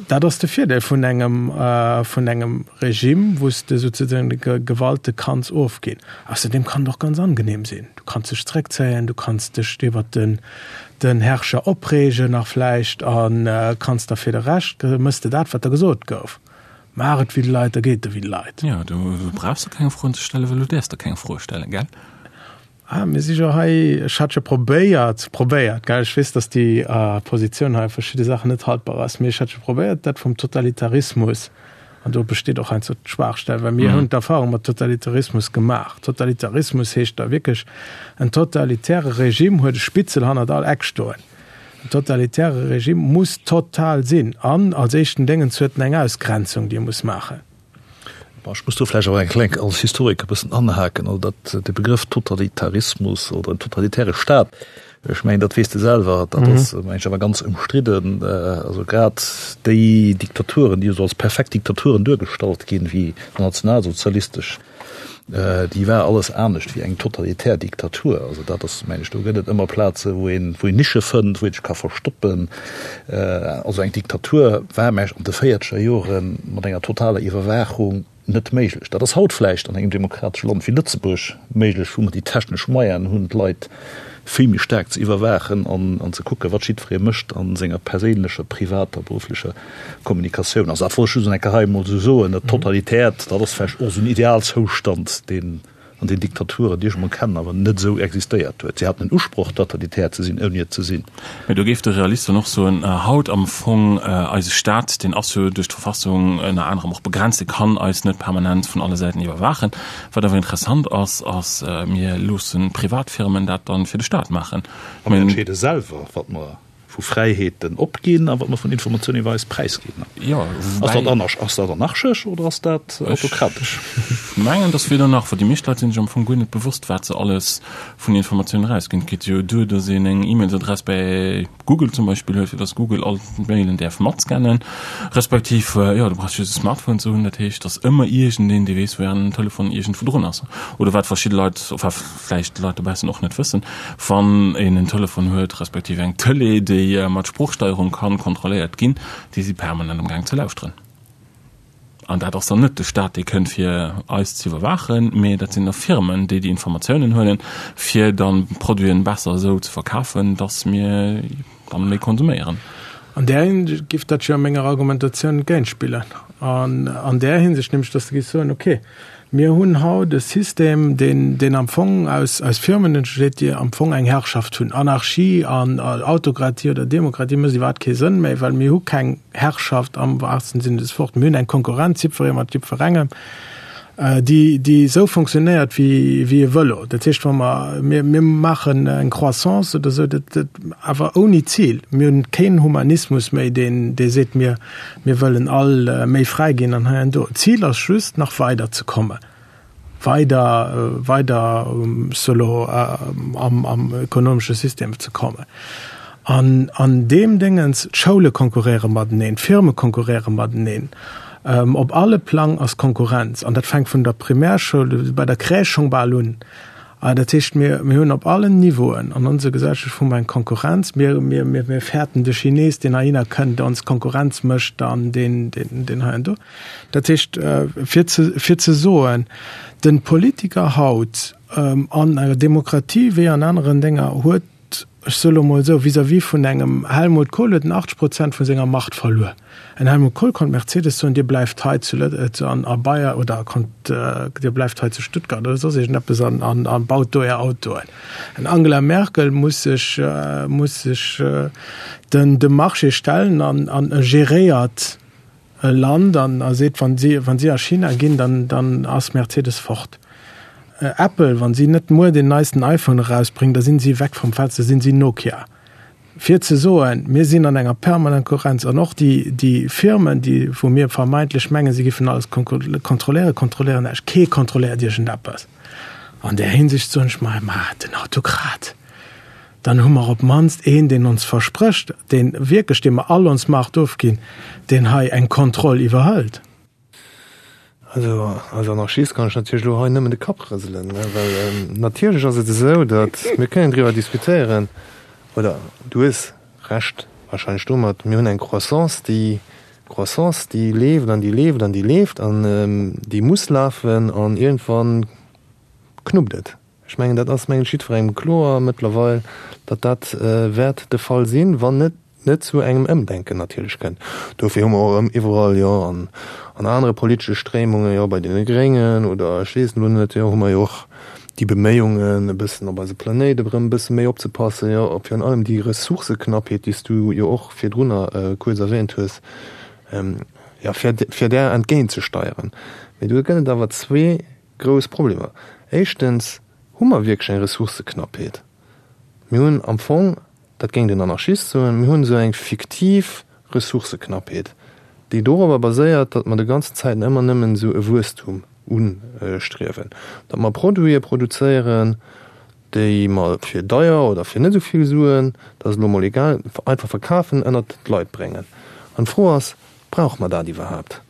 Dat ass de Virdeel vun engem, vun engem Regime, wou s de souzesoen de Gewalte kanns ofginn. Ausserdeem kann et och ganz angenehm sinn. Du kanns dech zréckzéien, du kanns dech iwwert den, den Herrscher opreegen nach vläicht a kanns da fir de Rescht, mëss de dat, wat der gesot gouf. Maach et wéi de Leit, da geet et der wéi de Leit. Jo, do brauchs de keng Froen ze stellen, well du däerfs der keng Froe stellen, gell? Ah, mir si jo hei, ech hat jo probéiert, probéiert, gell, ech weess, datt déi Positioun hei a verschidde Saachen net haltbar ass, mee ech hat jo probéiert, dat vum Totalitarismus, an do besteet och heiansdo d'Schwaachstell, well mir hunn d'Erfahrung mat Totalitarismus gemaach. Totalitarismus heescht da wierklech, en totalitäre Regime huet e Spitzel hannert all Eck stoen. En totalitäre Regime muss total sinn an als éischten Déngens huet en eng Ausgrenzung, déi e muss maachen. Bon, ech muss do vläicht awer eng kleng, als Historiker e bëssen anhaken. Also dat, de Begrëff Totalitarismus oder en totalitäre Staat, ech mengen, dat weess de selwer, dat ass, meng ech, awer ganz ëmstridden. Also grad déi Diktaturen, déi esou als perfekt Diktaturen duergestallt ginn, wéi nationalsozialistesch, Déi war alles anescht wéi eng totalitär Diktatur. Also dat ass, mengen ech, do gëtt et ëmmer Plaze wou een, wou een Nische fënnt, wou een sech ka verstoppen. Also eng Diktatur war, mengen ech, an de véierzeger Jore mat enger totaler Iwwerwaachung net méiglech. Dat ass haut vläicht an engem demokratesche Land wéi Lëtzebuerg méiglech, wou mer déi technesch Moyenen hunn, d'Leit vill méi staark ze iwwerwaachen an ze kucken, wat jiddweree mécht a senger perséinlecher, privater, berufflecher Kommunikatioun. Also dat wollt ech just eng Kéier hei emol esou soen. Dat Totalitäert, dat ass vläicht och esou en Idealzoustand, deen an den Diktaturen, déi ech emol kennen, awer net esou existéiert huet. Si haten den Usproch, totalitär ze sinn, ouni et ze sinn. Mä do géif de Realist dann och soen, haut am Fong, eise Staat, deen ass jo duerch d'Verfassung ënner anerem och begrenzt, dee kann eis net permanent vun alle Säiten iwwerwaachen. Wat awer interessant ass, ass, mir loosse Privatfirmen dat dann fir de Staat maachen. A mir entscheede selwer, wat mer vu Fräiheeten opginn a wat mer vun Informatiounen iwwer eis präisginn. Jo, Ass dat anarch, ass dat anarchesch oder ass dat autokratesch? Ech mengen, dass weder nach, well déi meescht Leit sinn sech am Fong guer net bewosst, wat se alles vun Informatiounen erausginn. Et geet jo duer, dass een eng E-Mailsadress bäi Google zum Beispill huet, fir dass Google all d'Mailen däerf matscannen, respektiv, jo, du brauchs just e Smartphone ze hunn, dat heescht, dass ëmmer iergendeen, dee weess, wou ären Telefon iergendwou drun ass. Oder wat verschidde Leit, enfin vläicht d'Leit dobaussen och net wëssen, wann een en Telefon huet, respektiv eng Tëlee, déi mat Sproochsteierung kann kontrolléiert ginn, déi si permanent am Gaang ze lauschteren. An dat ass dann net de Staat, dee kënnt fir eis ze iwwerwaachen, mee dat sinn da Firmen, déi déi Informatiounen huelen, fir dann d'Produiten besser esou ze verkafen, dass mir dann méi konsuméieren. An där Hinsicht giff dat jo menger Argumentatioun entgéintspillen. An an där Hinsicht nämlech, dass de giffs soen, okay, mir hunn haut e System, deen, deen am Fong aus, aus Firmen entsteet, déi am Fong eng Herrschaft hunn. Anarchie an Autokratie oder Demokratie mécht iwwerhaapt kee Sënn méi, well mir hu keng Herrschaft am wahrsten Sinne des Wortes. Mir hunn eng Konkurrenz, jiddweree mat jiddwerengem. déi, déi esou fonctionnéiert wéi, wéi e Vëlo. Dat heescht, wa mer, mir, mir maachen eng Croissance oder esou, dat, dat, awer ouni Zil. Mir hunn keen Humanismus méi, deen, dee seet, mir, mir wëllen all méi fräi ginn an hei an do. D'Zil ass just, nach weider ze kommen. Weider, weider solo am, am ökonomesche System ze kommen. An an deem Déngens, d'Schoule konkurréiere mateneen, d'Firme konkurréiere mateneen, op alle Plang ass Konkurrenz. An dat fänkt vun der Primärschoul, bei der Crèche schonn bal un. Dat heescht, mir, mir hunn op allen Niveauen an onser Gesellschaft hu mer eng Konkurrenz. Mir, mir, mir, mir fäerten de Chines, deen heihinner kënnt, ons Konkurrenz mécht an deen, deen, deen hei an do. Dat heescht, fir ze, fir ze soen, de Politiker haut an enger Demokratie wéi an aneren Dénger huet, ech soe lo mol esou, vis-à-vis vun engem Helmut Kohl huet en 80 Prozent vu senger Macht verluer. En Helmut Kohl konnt Mercedes soen, Dir bleift hei zu Lët, an a Bayer oder konnt, Dir bleift hei zu Stuttgart oder soss iergendeppes an, an, a baut do Är Autoen. En Angela Merkel muss sech, muss sech den, dem Marché stellen an, an geréiert e Land an a seet, wann si, wann si a China ginn, dann, dann ass Mercedes fort. Apple, wann si net muer deen neisten iPhone erausbréngen, da sinn si weg vom Fenster, sinn si Nokia. Fir ze soen, mir sinn an enger permanent Konkurrenz an och déi, déi Firmen, déi, wou mir vermeintlech mengen, si giffen alles kontrolléieren, kontrolléieren näischt. Kee kontrolléiert iergendeppes. An där Hinsicht soen ech mer, ma den Autokrat. Dann hu mer op d'mannst een, deen ons versprécht, deen wierklech, deem mer all ons Macht ofginn, deen hei eng Kontroll iwwerhëlt. Also als Anarchist kann ech natierlech elo hei nëmmen de Kapp rëselen, well natierlech ass et esou, datt mir kënnen driwwer diskutéieren, oder du hues Recht wahrscheinlech domat, mir hunn eng Croissance, déi Croissance, déi leeft an déi leeft an déi leeft an déi muss lafen an iergendwann knuppt et. Ech mengen, dat ass mengen ech jiddwerengem kloer mëttlerweil, datt dat wäert de Fall sinn, wann et net zu engem Ëmdenken natierlech kënnt. Dofir hu mer och erëm iwwerall, jo an an anere politesche Stréimungen, jo bei deene Gréngen oder ech weess elo net, jo hu mer jo och déi Beméiungen e bëssen op eise Planéit erëm e bësse méi opzepassen, jo op virun allem déi Ressourcëknappheet, déi s du jo och virdrunner kuerz erwähnt hues, jo fir fir där entgéintzesteieren. Mee do gëtt et awer zwee Grouss Problemer. Éischtens, hu mer wierklech eng Ressourcëknappheet? Mir hunn am Fong, dat géing den Anarchist soen, mir hunn esou eng fiktiv Ressourcëknappheet, déi dorobber baséiert, datt mer de ganzen Zäiten ëmmer nëmmen esou e Wuesstum ustriewen, datt mer Produite produzéieren, déi mer fir deier oder fir net esou vill Suen, dat ass elo emol egal, einfach verkafen, ënnert d'Leit bréngen. An d'Fro ass, Brauche mer dat iwwerhaapt?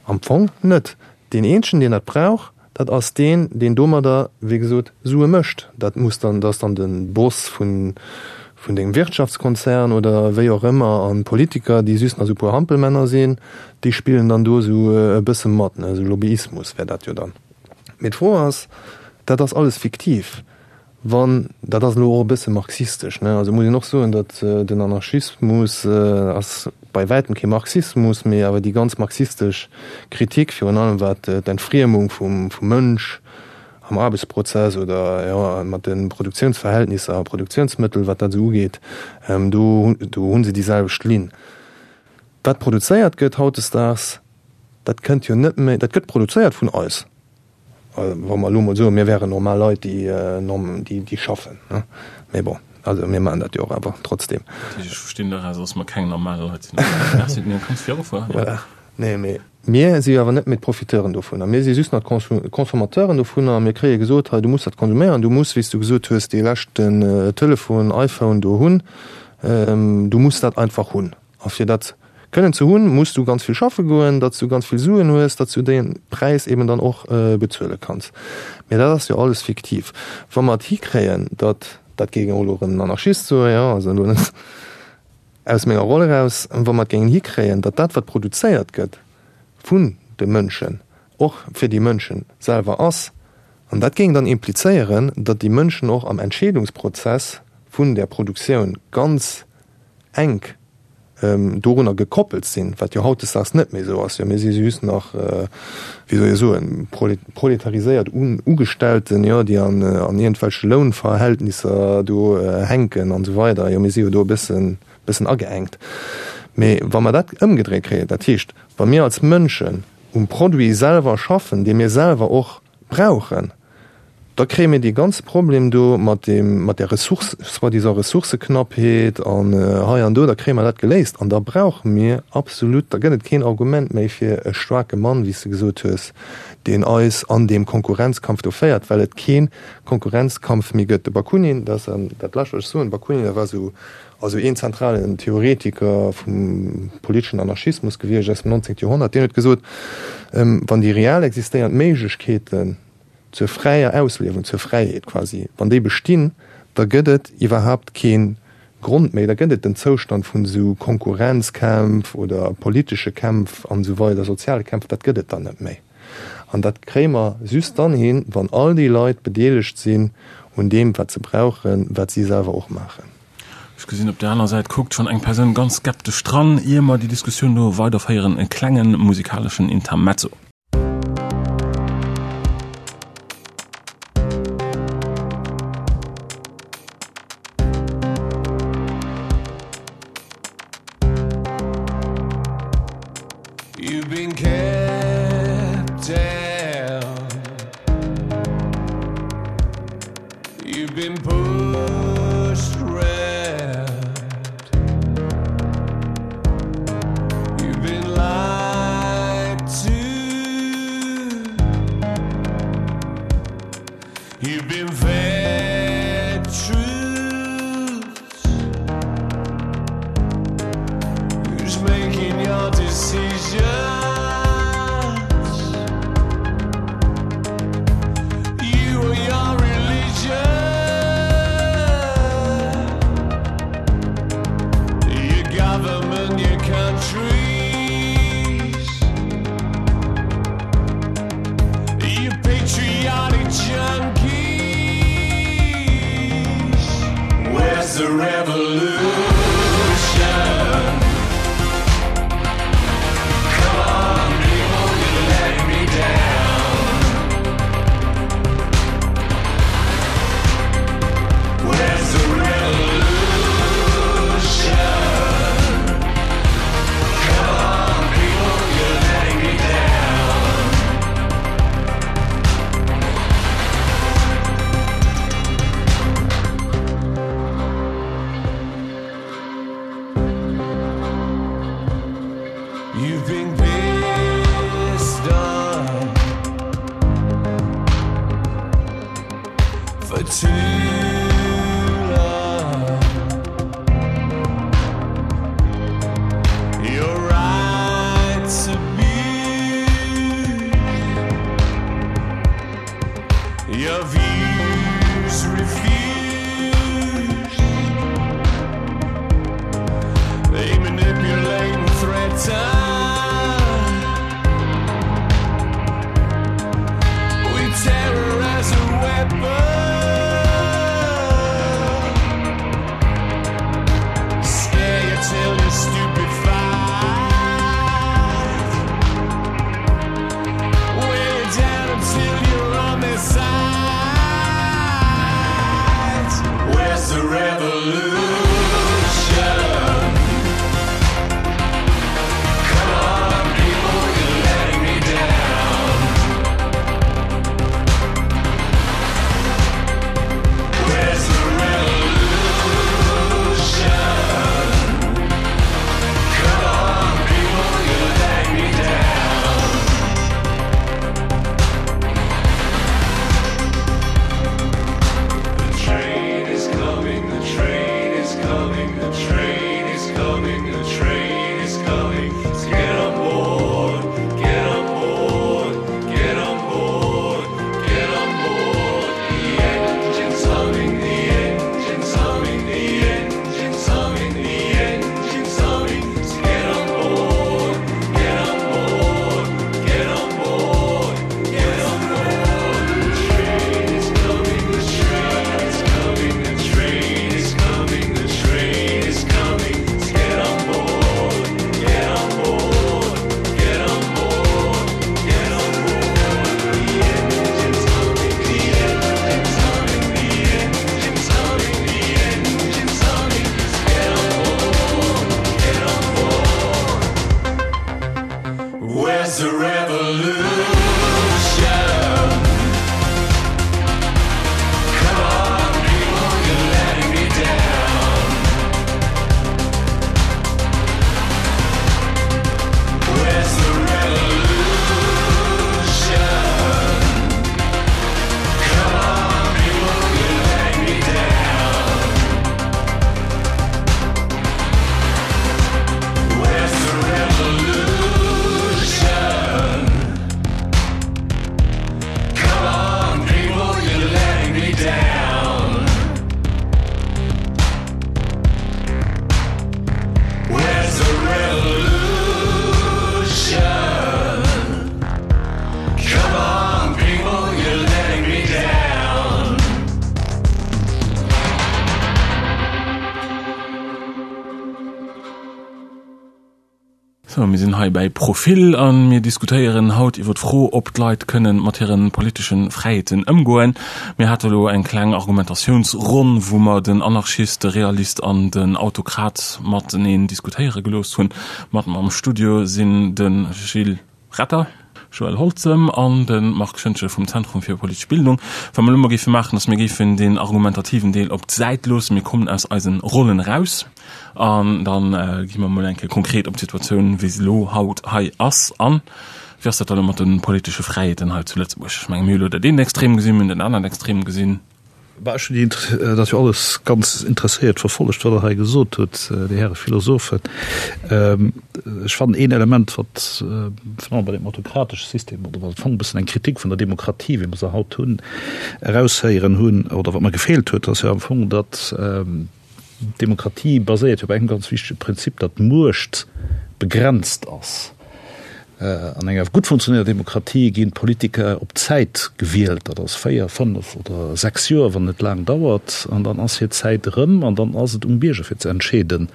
Am Fong net. Deen eenzegen, deen dat brauch, dat ass deen, deen domadder, wéi gesot, Sue mécht. Dat muss dann, dat ass dann de Boss vun, vun dengem Wirtschaftskonzern oder wéi och ëmmer. An d'Politiker, déi just nach esou e puer Hampelmänner sinn, déi spillen dann do esou e bësse mat, ne, esou Lobbyismus wär dat jo dann. Mee d'Fro ass, dat ass alles fiktiv. Wann, dat ass elo och e bësse marxistesch, ne, also muss een och soen, datt den Anarchismus ass bei wäitem kee Marxismus, mee awer déi ganz marxistesch Kritik, virun allem wat d'Entfriemung vum Mënsch am Aarbechtsprozess oder, jo, mat de Produktiounsverhältnisser a Produktiounsmëttel, wat dat esou ugeet, do, do hu se déi selwecht Linn. Wat produzéiert gëtt hautdesdaags, dat kënnt jo net méi, dat gëtt produzéiert vun eis. Wa mer elo mol soen, mir wären normal Leit, déi, déi schaffen, ne? Mee bon, also mir maachen dat jo och awer trotzdem. Ech verstinn doraus, dass mer keng normal Leit sinn. Merci, mir kanns virufueren. Voilà. Nee, mee mir si jo awer net méi d'Profiteuren dovunner. Mir si just nach d'Consommateuren dovunner. Mir kréie gesot, hei, du muss dat konsuméieren, du muss, wéi s du gesot hues, dee leschten Telefon, iPhone do hunn. Du muss dat einfach hunn. A fir dat kënnen ze hunn, muss du ganz vill schaffe goen, datt s du ganz vill Suen hues, datt s du dee Präis eben dann och bezuele kanns. Mä dat ass jo alles fiktiv. Wa mer et hikréien, datt, dat géing och elo erëm en Anarchist soen, jo, also elo net aus menger Roll eraus, wa mer et géingen hikréien, datt dat wat produzéiert gëtt vun de Mënschen, och fir déi Mënsche selwer ass, an dat géing dann implizéieren, datt déi Mënschen och am Entscheedungsprozess vun där Produktioun ganz enk dorunner gekoppelt sinn, wat jo hautdesdaags net méi esou ass. Jo, mir si just nach, wéi soll ee soen, proletariséiert Ugestellten, jo, déi an iergendwelche Lounverhältnisser do hänken an esou weider. Jo, mir si jo do e bëssen, bëssen ageengt. Mee wa mer dat ëmgedréit kréien, dat heescht, wa mir als Mënschen. um Produit selwer schaffen, dee mir selwer och brauchen, da kréie mir dee ganze Problem do mat deem, mat där Ressource, soi-disant Ressourcëknappheet an hei an do, da kréie mer dat geléist. An da brauche mir absolut, da gëtt et keen Argument méi fir e staarke Mann, wéi s de gesot hues, deen eis an deem Konkurrenzkampf do féiert, well et kee Konkurrenzkampf méi gëtt. De Bakunin, dat ass dat Lescht, wat ech soen, Bakunin, dat war esou, also een zentralen Theoretiker vum politeschen Anarchismus gewiescht aus dem 19. Joerhonnert, deen huet gesot, wann déi real existéiernd Méiglechkeeten zur fräier Ausliewung, zur Fräiheet quasi, wann déi bestinn, da gëtt et iwwerhaapt kee Grond méi, da gëtt et den Zoustand vun esou Konkurrenzkämpf oder politesche Kämpf an esou weider, soziale Kämpf, dat gëtt et dann net méi. An dat kréie mer just dann hin, wann all déi Leit bedeelegt sinn un deem, wat se brauchen, wat si selwer och maachen. Ech gesinn, op där aner Säit kuckt schonn eng Persoun ganz skeptesch dran. Ier mer déi Diskussioun do weiderféieren, e klenge musikaleschen Intermezzo. You've been kept down. You've been pushed round. You've been lied to. You've been fed truths. Who's making your decisions? You or your religion? Your government, your countries. You patriotic junkies. Where's the revolution? Come on, people, you're letting me down. Where's the revolution? Come on, people, you're letting me down. You've been pissed off for too long. Your rights abused, your views refused. They manipulate and threaten with terror as a weapon. Scare you till you're stupefied. Weigh you down until you're on their side. Where's the revolution? Come on, people, you're letting me down. Sou, mir sinn hei bäi Profil a mir diskutéieren haut iwwer d'Fro, ob d'Leit kënnen mat hire politesche Fräiheeten ëmgoen. Mir hate elo eng kleng Argumentatiounsronn, wou mer den Anarchist, de Realist an den Autokrat mateneen diskutéiere gelooss hunn. Mat mer am Studio sinn de Gilles Retter, Joël Holzem an de Marc Schoentgen vum Zentrum fir politesch Bildung. Wat mer elo mol géife maachen, ass mir géifen deen argumentativen Deel op d'Säit loossen. Mir kommen aus eisen Rollen eraus an da gi mer mol eng Kéier konkret op d'Situatioun, wéi se elo haut hei ass, an. Wéi ass dat dann elo mat de politesche Fräiheeten hei zu Lëtzebuerg? Ech menge mir hu elo dat eent Extrem gesinn, mir hunn dat anert Extrem gesinn. Bah, ech hunn dat jo alles ganz interesséiert verfollegt, wat Der hei gesot hutt, Dir Häre Philosophen. Ech fannen een Element, wat virun allem bei deem autokratesche System, oder wat am Fong e bëssen eng Kritik vun der Demokratie, wéi mer se haut hunn, eraushéieren hunn, oder wat mer gefeelt huet, ass jo am Fong, datt D'Demokratie baséiert jo op engem ganz wichtege Prinzip, datt d'Muecht begrenzt ass. An enger gutt funktionéierter Demokratie ginn d'Politiker op Zäit gewielt, dat ass 4, 5 oder 6 Joer, wann et laang dauert, an dann ass hir Zäit erëm an dann ass et um Bierger fir ze entscheeden,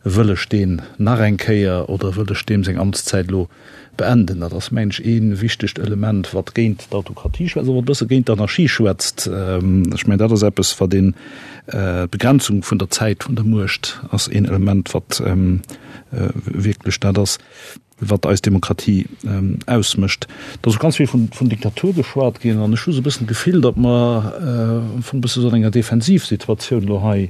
wëll ech deen nach eng Kéier oder wëll ech deem seng Amtszäit elo Beenden. Dat ass, mengen ech, ee wichtegt Element, wat géint d'Autokratie schwätzt, awer och e bësse géint d'Anarchie schwätzt. Ech mengen, dat ass eppes, wat een, d'Begrenzung vun der Zäit vun der Muecht ass een Element, wat wierklech dat ass, wat eis Demokratie ausmécht. Et ass och ganz vill vun Diktatur geschwat ginn an ech hu sou e bëssen d'Gefill, datt mer am Fong e bësse sou an enger Defensivsituatioun elo hei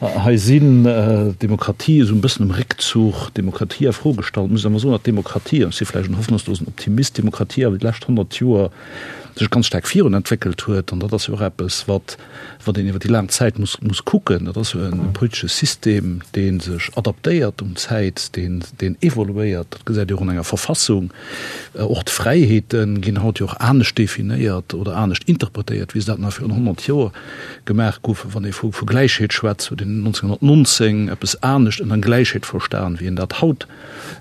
Hei sinn d'Demokratie esou e bëssen um Réckzuch, d'Demokratie a Fro gestallt. Muss awer soen, datt d'Demokratie, an ech si vläicht en hoffnungslosen Optimist, d'Demokratie awer déi lescht 100 Joer sech ganz staark virun entwéckelt huet. An dat ass jo och eppes, wat wat een iwwer déi laang Zäit muss muss kucken. Dat ass jo e politesche System, dee sech adaptéiert un d'Zäit, deen deen evoluéiert. Dat gesäit ee och an enger Verfassung. Och d'Fräiheete ginn haut jo och anescht definéiert oder anescht interpretéiert, wéi se dat nach virun 100 Joer gemaach goufen. Wann ee vu Gläichheet schwätzt, huet een 1919 eppes anescht ënner Gläichheet verstan, wéi een dat haut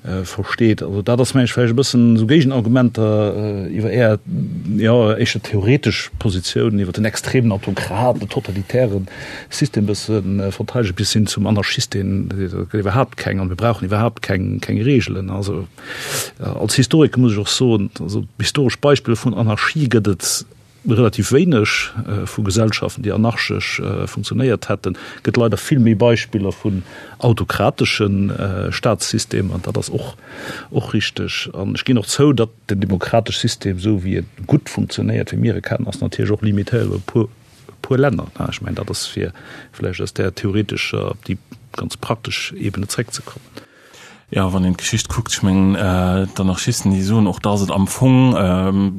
versteet. Also dat ass, meng ech, vläicht e bëssen esou Géigenargumenter iwwer Är, jo, éischter theoretesch Positioun iwwer den extremen Autokrat, den totalitäre System e bësse verteidegen, bis hin zum Anarchist, deen seet, et gëtt iwwerhaapt keng an mir brauchen iwwerhaapt keng Reegelen. Also als Historiker muss ech och soen, also historesch Beispiller vun Anarchie gëtt et relativ wéineg, vu Gesellschaften, déi anarchesch funktionéiert hätten. Et gëtt leider vill méi Beispiller vun autokratesche Staatssystemer, an dat ass och och richteg. An ech ginn och zou, datt den demokratesche System, esou wéi e gutt funktionéiert, wéi mir e kennen, ass natierlech och limitéiert op e puer puer Länner. Ech mengen, dat ass fir vläicht aus där theoretescher op déi ganz praktesch Ebene zréckzekommen. Jo, wann een d'Geschicht kuckt, ech mengen, d'Anarchisten, déi soen och, dass et am Fong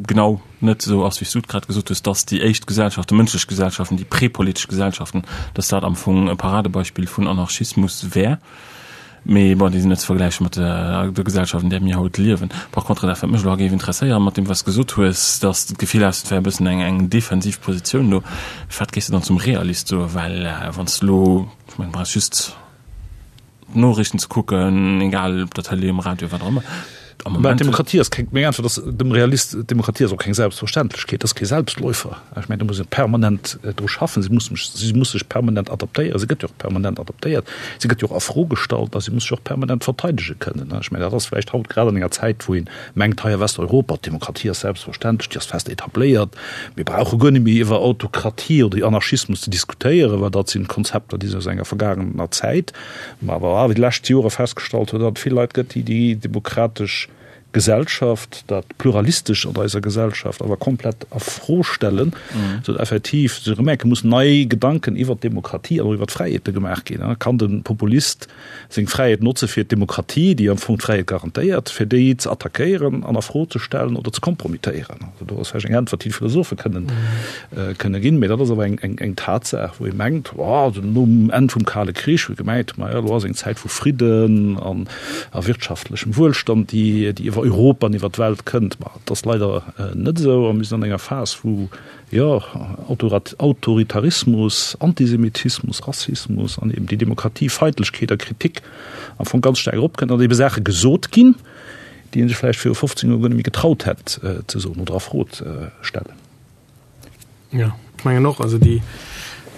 genau net esou ass, wéi s du et grad gesot hues, dass déi éischt Gesellschaften, mënschlech Gesellschaften, déi prepolitesch Gesellschaften, dass dat am Fong e Paradebeispill vun Anarchismus wär. Mee bon, déi sinn net ze vergläiche mat der Gesellschaft, an där mir haut liewen. Par contre, dat wat mech elo géif interesséieren, mat deem wat s de gesot hues, dass de d'Gefill has, et wär e bëssen eng eng defensiv Positioun do, wat géifs de dann zum Realist soen? Well wann s de elo, ech mengen, du brauchs just, d'Noriichten ze kucken, egal op der Tëlee, um Radio, wat och ëmmer. Am Moment. D'Demokratie ass keng, meng Äntwert ass dem Realist, d'Demokratie ass och keng Selbstverständlechkeet, ass kee Selbstläufer. Ech mengen, do muss ee permanent dru schaffen, si muss, si muss sech permanent adaptéieren, si gëtt jo och permanent adaptéiert, si gëtt jo och a Fro gestallt a si muss sech och permanent verteidege kënnen. Ech mengen, dat ass vläicht haut grad an enger Zäit, wou ee mengt, hei a Westeuropa, d'Demokratie ass selbstverständlech, déi ass fest etabléiert, mir brauche guer net méi iwwer Autokratie oder Anarchismus ze diskutéieren, well dat sinn Konzepter, déi sinn aus enger vergaangener Zäit. Mä awer wéi déi lescht Jore festgestallt huet, datt et vill Leit gëtt, déi déi demokratesch Gesellschaft, dat Pluralistescht an eiser Gesellschaft awer komplett a Fro stellen, sou datt effektiv se erëm merken, mussen nei Gedanken iwwert d'Demokratie an och iwwert d'Fräiheete gemaach ginn. Kann de Populist seng Fräiheet notze fir d'Demokratie, déi am Fong d'Fräiheet garantéiert, fir déi ze attackéieren an a Fro ze stellen oder ze kompromittéieren? Also do ass vläicht eng Äntwert, déi d'Philosophe kënnen kënne ginn. Mee dat ass awer eng, eng, eng Tatsaach, wou ee mengt, oh, also nom Enn vum Kale Krich, wou ee gemengt huet, maja, elo ass eng Zäit vu Fridden an a wirtschaftlechem Wuelstand, déi, déi iwwer Europa an iwwer d'Welt kënnt. Ma et ass leider net esou a mir sinn an enger Phas, wou, jo, Autoritarismus, Antisemitismus, Rassismus an eben déi Demokratiefeindlechkeet a Kritik am Fong ganz staark eropkënnt an ebe Saache gesot ginn, déi ee sech vläicht viru 15 Joer guer net méi getraut hätt ze soen oder a Fro ze stellen. Jo, ech mengen och, also déi.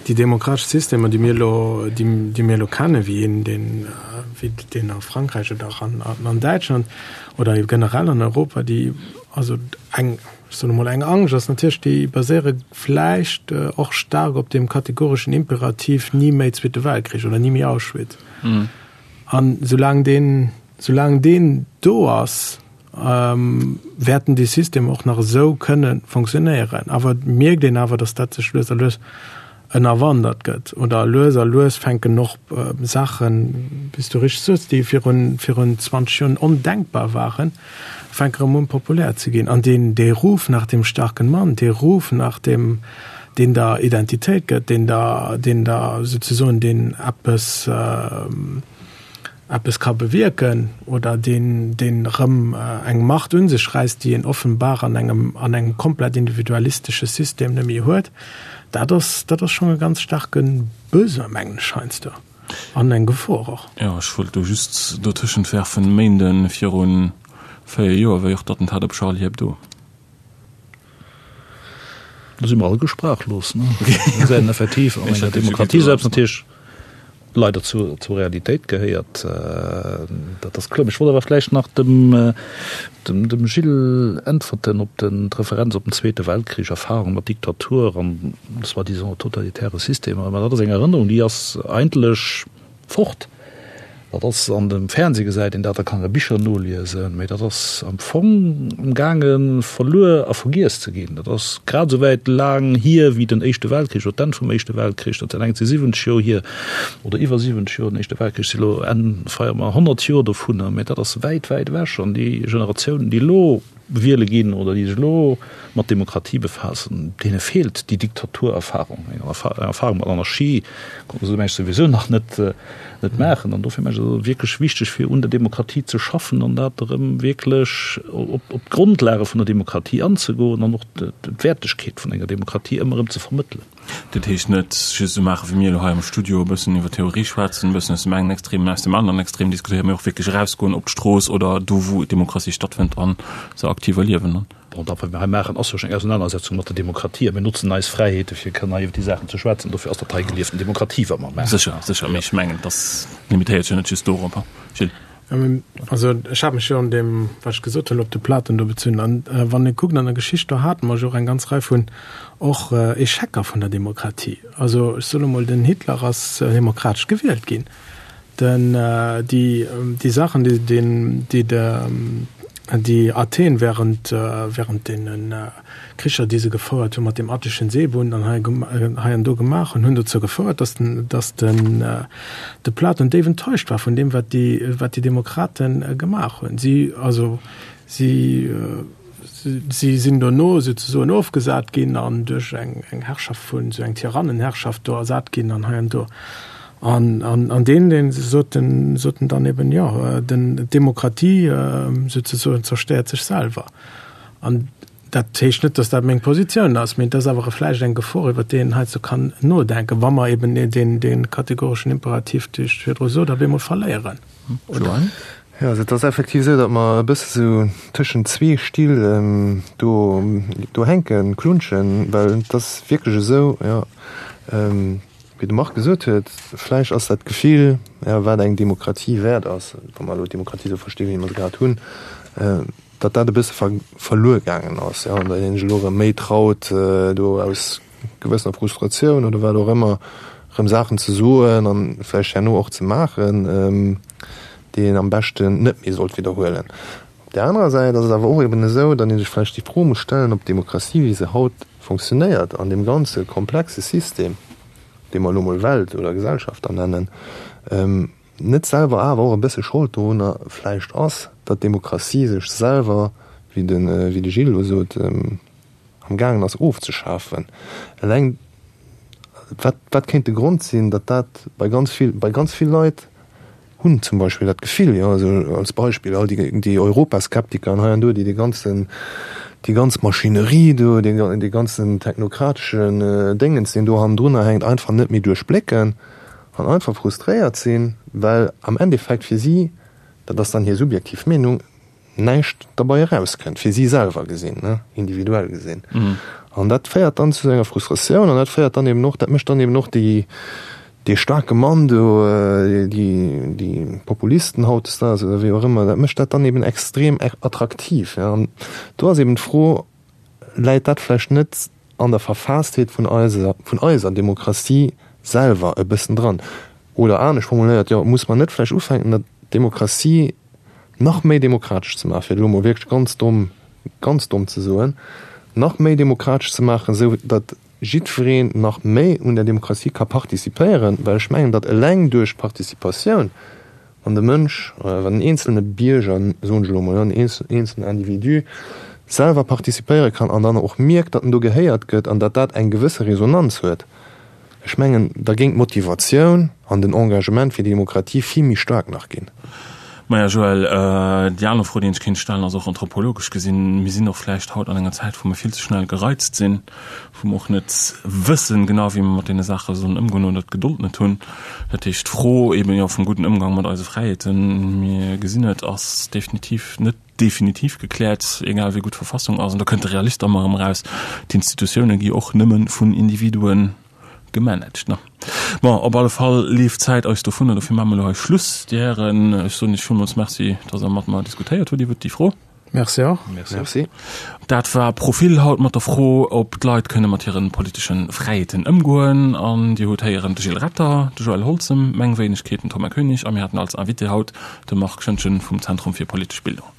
Déi demokratesch Systemer, déi mir elo, déi mir elo kennen, wéi een deen, wéi deen a Frankräich oder och an, an Däitschland oder generell an Europa, déi, also eng, ech soen emol, eng Angscht ass natierlech, déi baséiere vläicht och staark op deem kategoreschen Imperativ ni méi Zweete Weltkrich oder ni méi Auschwitz. An soulaang deen, soulaang deen do ass, wäerten déi Systemer och nach esou kënne fonctionnéieren. Awer et mierkt een awer, datt dat sech lues a lues ënnerwandert gëtt oder lues a lues fänken och Saachen, wéi s du richteg soos, déi virun, virun 20 Joren ondenkbar waren, fänke erëm un populär ze ginn. An deen, dee Ruf nach dem starken Mann, dee Ruf nach dem, deen der Identitéit gëtt, deen der, deen der souzesoen, deen eppes, eppes ka bewierken oder deen, deen erëm eng Macht un sech räisst, déi een offenbar an engem, an engem komplett individualistesche System net méi huet, dat ass, dat ass schonn e ganz staarke Besoin, mengen ech heiansdo, an eng Gefor och. Jo, ech wollt do just dotëschent werfen, Méinde viru 4 Joer war jo och d'Attentat op Charlie Hebdo. Do si mer alleguer sprachlos, ne? Mir sinn effektiv an enger Demokratie selbst natierlech leider zur, zur Realitéit gehéiert. Dat ass kloer. Ech wollt awer vläicht nach dem, dem, dem Gilles äntwerten op den, d'Referenz op den Zweete Weltkrich, Erfahrung mat Diktatur an soi-disant totalitäre Systemer. Mä dat ass eng Erënnerung, déi ass eigentlech fort. Dat ass an dem Fernseh gesäit een dat, da kann een a Bicher noliesen, mee dat ass am Fong am gaange verluer a vergiess ze ginn. Dat ass grad esou wäit laang hier wéi den Éischte Weltkrich oder d'Enn vum Éischte Weltkrich. Dat sinn eng zu 70 Joer hier oder iwwer 70 Joer. Den Éischte Weltkrich si lo Enn feiere mer 100 Joer dovunner, mee dat ass wäit, wäit ewech. An déi Generatiounen, déi elo wiele ginn oder déi sech elo mat Demokratie befaassen, deene feelt déi Diktaturerfahrung. Eng Erfahrung mat Anarchie konnte se mengen ech souwisou nach net net maachen. An dofir mengen ech, ass et wierklech wichteg fir un der Demokratie ze schaffen an dat erëm wierklech op op d'Grondlage vun der Demokratie anzegoen an och d'Wäertegkeet vun enger Demokratie ëmmer erëm ze vermëttelen. Dat heescht net just esou maachen, wéi mir elo hei am Studio, e bëssen iwwer Theorie schwätzen, e bëssen aus dem engen Extrem an aus dem aneren Extrem diskutéieren, mee och wierklech erausgoen op d'Strooss oder do, wou Demokratie stattfënnt a se aktiv erliewen. Bon, dat, wat mir hei maachen, ass jo schonn eng Ausenanersetzung mat der Demokratie a mir notzen eis Fräiheete fir kënnen hei iwwer déi Saachen ze schwätzen. Dofir ass dat hei gelieften Demokratie, wat mer maachen. Sécher, sécher, mee ech mengen, et ass limitéiert sech jo net just dorop. Gilles. Also ech hat mech jo an deem, wat ech gesot hunn, op de Platon do bezunn. An wann ee kuckt an der Geschicht, do hate mer jo och eng ganz Rei vun och Echecker vun der Demokratie. Also ech soen emol, den Hitler ass demokratesch gewielt ginn. Den, déi, déi Saachen, déi den, déi de, déi Athen während, während deene Kricher, déi se gefouert hunn, mat deem Attischen Seebund an hei, hei an do gemaach hunn, hunn dozou gefouert, dass den, dass den, de Platon déif enttäuscht war vun deem, wat déi, wat déi Demokrate gemaach hunn. Si, also si, si sinn dono souzesoen ofgesat ginn an duerch eng, eng Herrschaft vun, esou eng Tyrannenherrschaft do ersat ginn an hei an do. An, an, an deen, deen sot den, sot en dann eben, jo, den, d'Demokratie souzesoen zerstéiert sech selwer. An dat heescht net, dass dat meng Positioun ass, mee et ass awer vläicht eng Gefor, iwwert déi een heizou kann nodenken, wa mer eben deen, dee kategoreschen Imperativ, dee ech virdru sot, op eemol verléieren. Oder? Jo, also et ass effektiv esou, datt mer e bësse sou tëschent zwee Still do, do hänken, klunschen, well et ass wierklech esou, jo, wéi de Marc gesot huet, vläicht ass dat Gefill, jo, wat eng Demokratie wäert ass, wa mer elo d'Demokratie esou verstinn, wéi mer se grad hunn, datt dat e bësse verluer gaangen ass, jo, an datt een sech elo erëm méi traut, do aus gewëssener Frustratioun oder wat och ëmmer erëm Saachen ze soen an vläicht herno och ze maachen, déi een am beschten net méi sollt widderhuelen. Op där anerer Säit ass et awer och eben esou, datt ee sech vläicht déi Fro muss stellen, ob d'Demokratie, wéi se haut funktionéiert, an deem ganze komplexe System, dee mer elo mol Welt oder Gesellschaft da nennen, net selwer awer och e bësse Schold dorunner vläicht ass, datt d'Demokratie sech selwer, wéi de wéi de Gilles elo sot, am gaangen ass ofzeschafen. Eleng wat wat kéint de Grond sinn, datt dat bei ganz vill bei ganz vill Leit hunn zum Beispill dat Gefill, jo, also als Beispill all déi déi Europaskeptiker an hei an do, déi dee ganzen déi ganz Maschinerie do, dee dee ganzen technokrateschen Déngens, deen do hannendrunner hänkt, einfach net méi duerchblécken. An einfach frustréiert sinn, well am Endeffekt fir si, dat ass dann hir subjektiv Meenung, näischt derbei erauskënnt, fir si selwer gesinn, ne, individuell gesinn. An dat féiert dann zu enger Frustratioun an dat féiert dann eben och, dat mécht dann eben och déi, dee staarke Mann do, déi, déi Populisten hautdesdaags oder wéi och ëmmer, dat mécht dat dann eben extrem attraktiv. An do ass eben d'Fro, Läit dat vläicht net an der Verfaastheet vun eiser, vun eiser Demokratie selwer e bëssen dran? Oder anescht formuléiert, jo, muss mer net vläicht ufänken, der Demokratie nach méi demokratesch ze maachen, fir et elo emol wierklech ganz domm, ganz domm ze soen, nach méi demokratesch ze maachen, esou datt jiddwereen nach méi un der Demokratie ka participéieren, well ech mengen, datt eleng duerch d'Participatioun, wann de Mënsch, wann den eenzelne Bierger, soen ech elo emol, den eenzelnen Individu selwer participéiere kann an dann och mierkt, datt en do gehéiert gëtt an datt dat eng gewësse Resonanz huet, Ech mengen, da géing d'Motivatioun an den Engagement fir déi Demokratie vill méi staark nach ginn. Maja Joël, déi aner Fro, déi een sech kéint stellen, ass och anthropologesch gesinn, mir sinn och vläicht haut an enger Zäit, wou mir vill ze schnell gereizt sinn, wou mer och net wëssen genau, wéi mer mat deene Saache sollen ëmgoen oder d'Gedold net hunn. Dat heescht, d'Fro eeben jo vum gudden Ëmgang mat eise Fräiheeten, mir gesinn et, ass definitiv net definitiv gekläert, egal wéi gutt d'Verfassung ass, an do kënnt de Realist ëmmer erëm eraus, d'Institutioune gi och nëmme vun Individue gemanagt. Ne? Bon, op alle Fall leeft d'Zäit eis dovunner, dofir maache mer elo hei Schluss. Dir Hären, ech soen Iech villmools Merci, dass Der mat mer diskutéiert hutt iwwert déi Fro. Merci och. Merci. Dat war Profil haut mat der Fro, ob d'Leit kënne mat hire politesche Fräiheeten ëmgoen. An Dir hutt héieren de Gilles Retter, de Joël Holzem, meng Wéinegkeet, den Thomas Koenig a mir haten als Invité haut de Marc Schoentgen vum Zentrum fir politesch Bildung.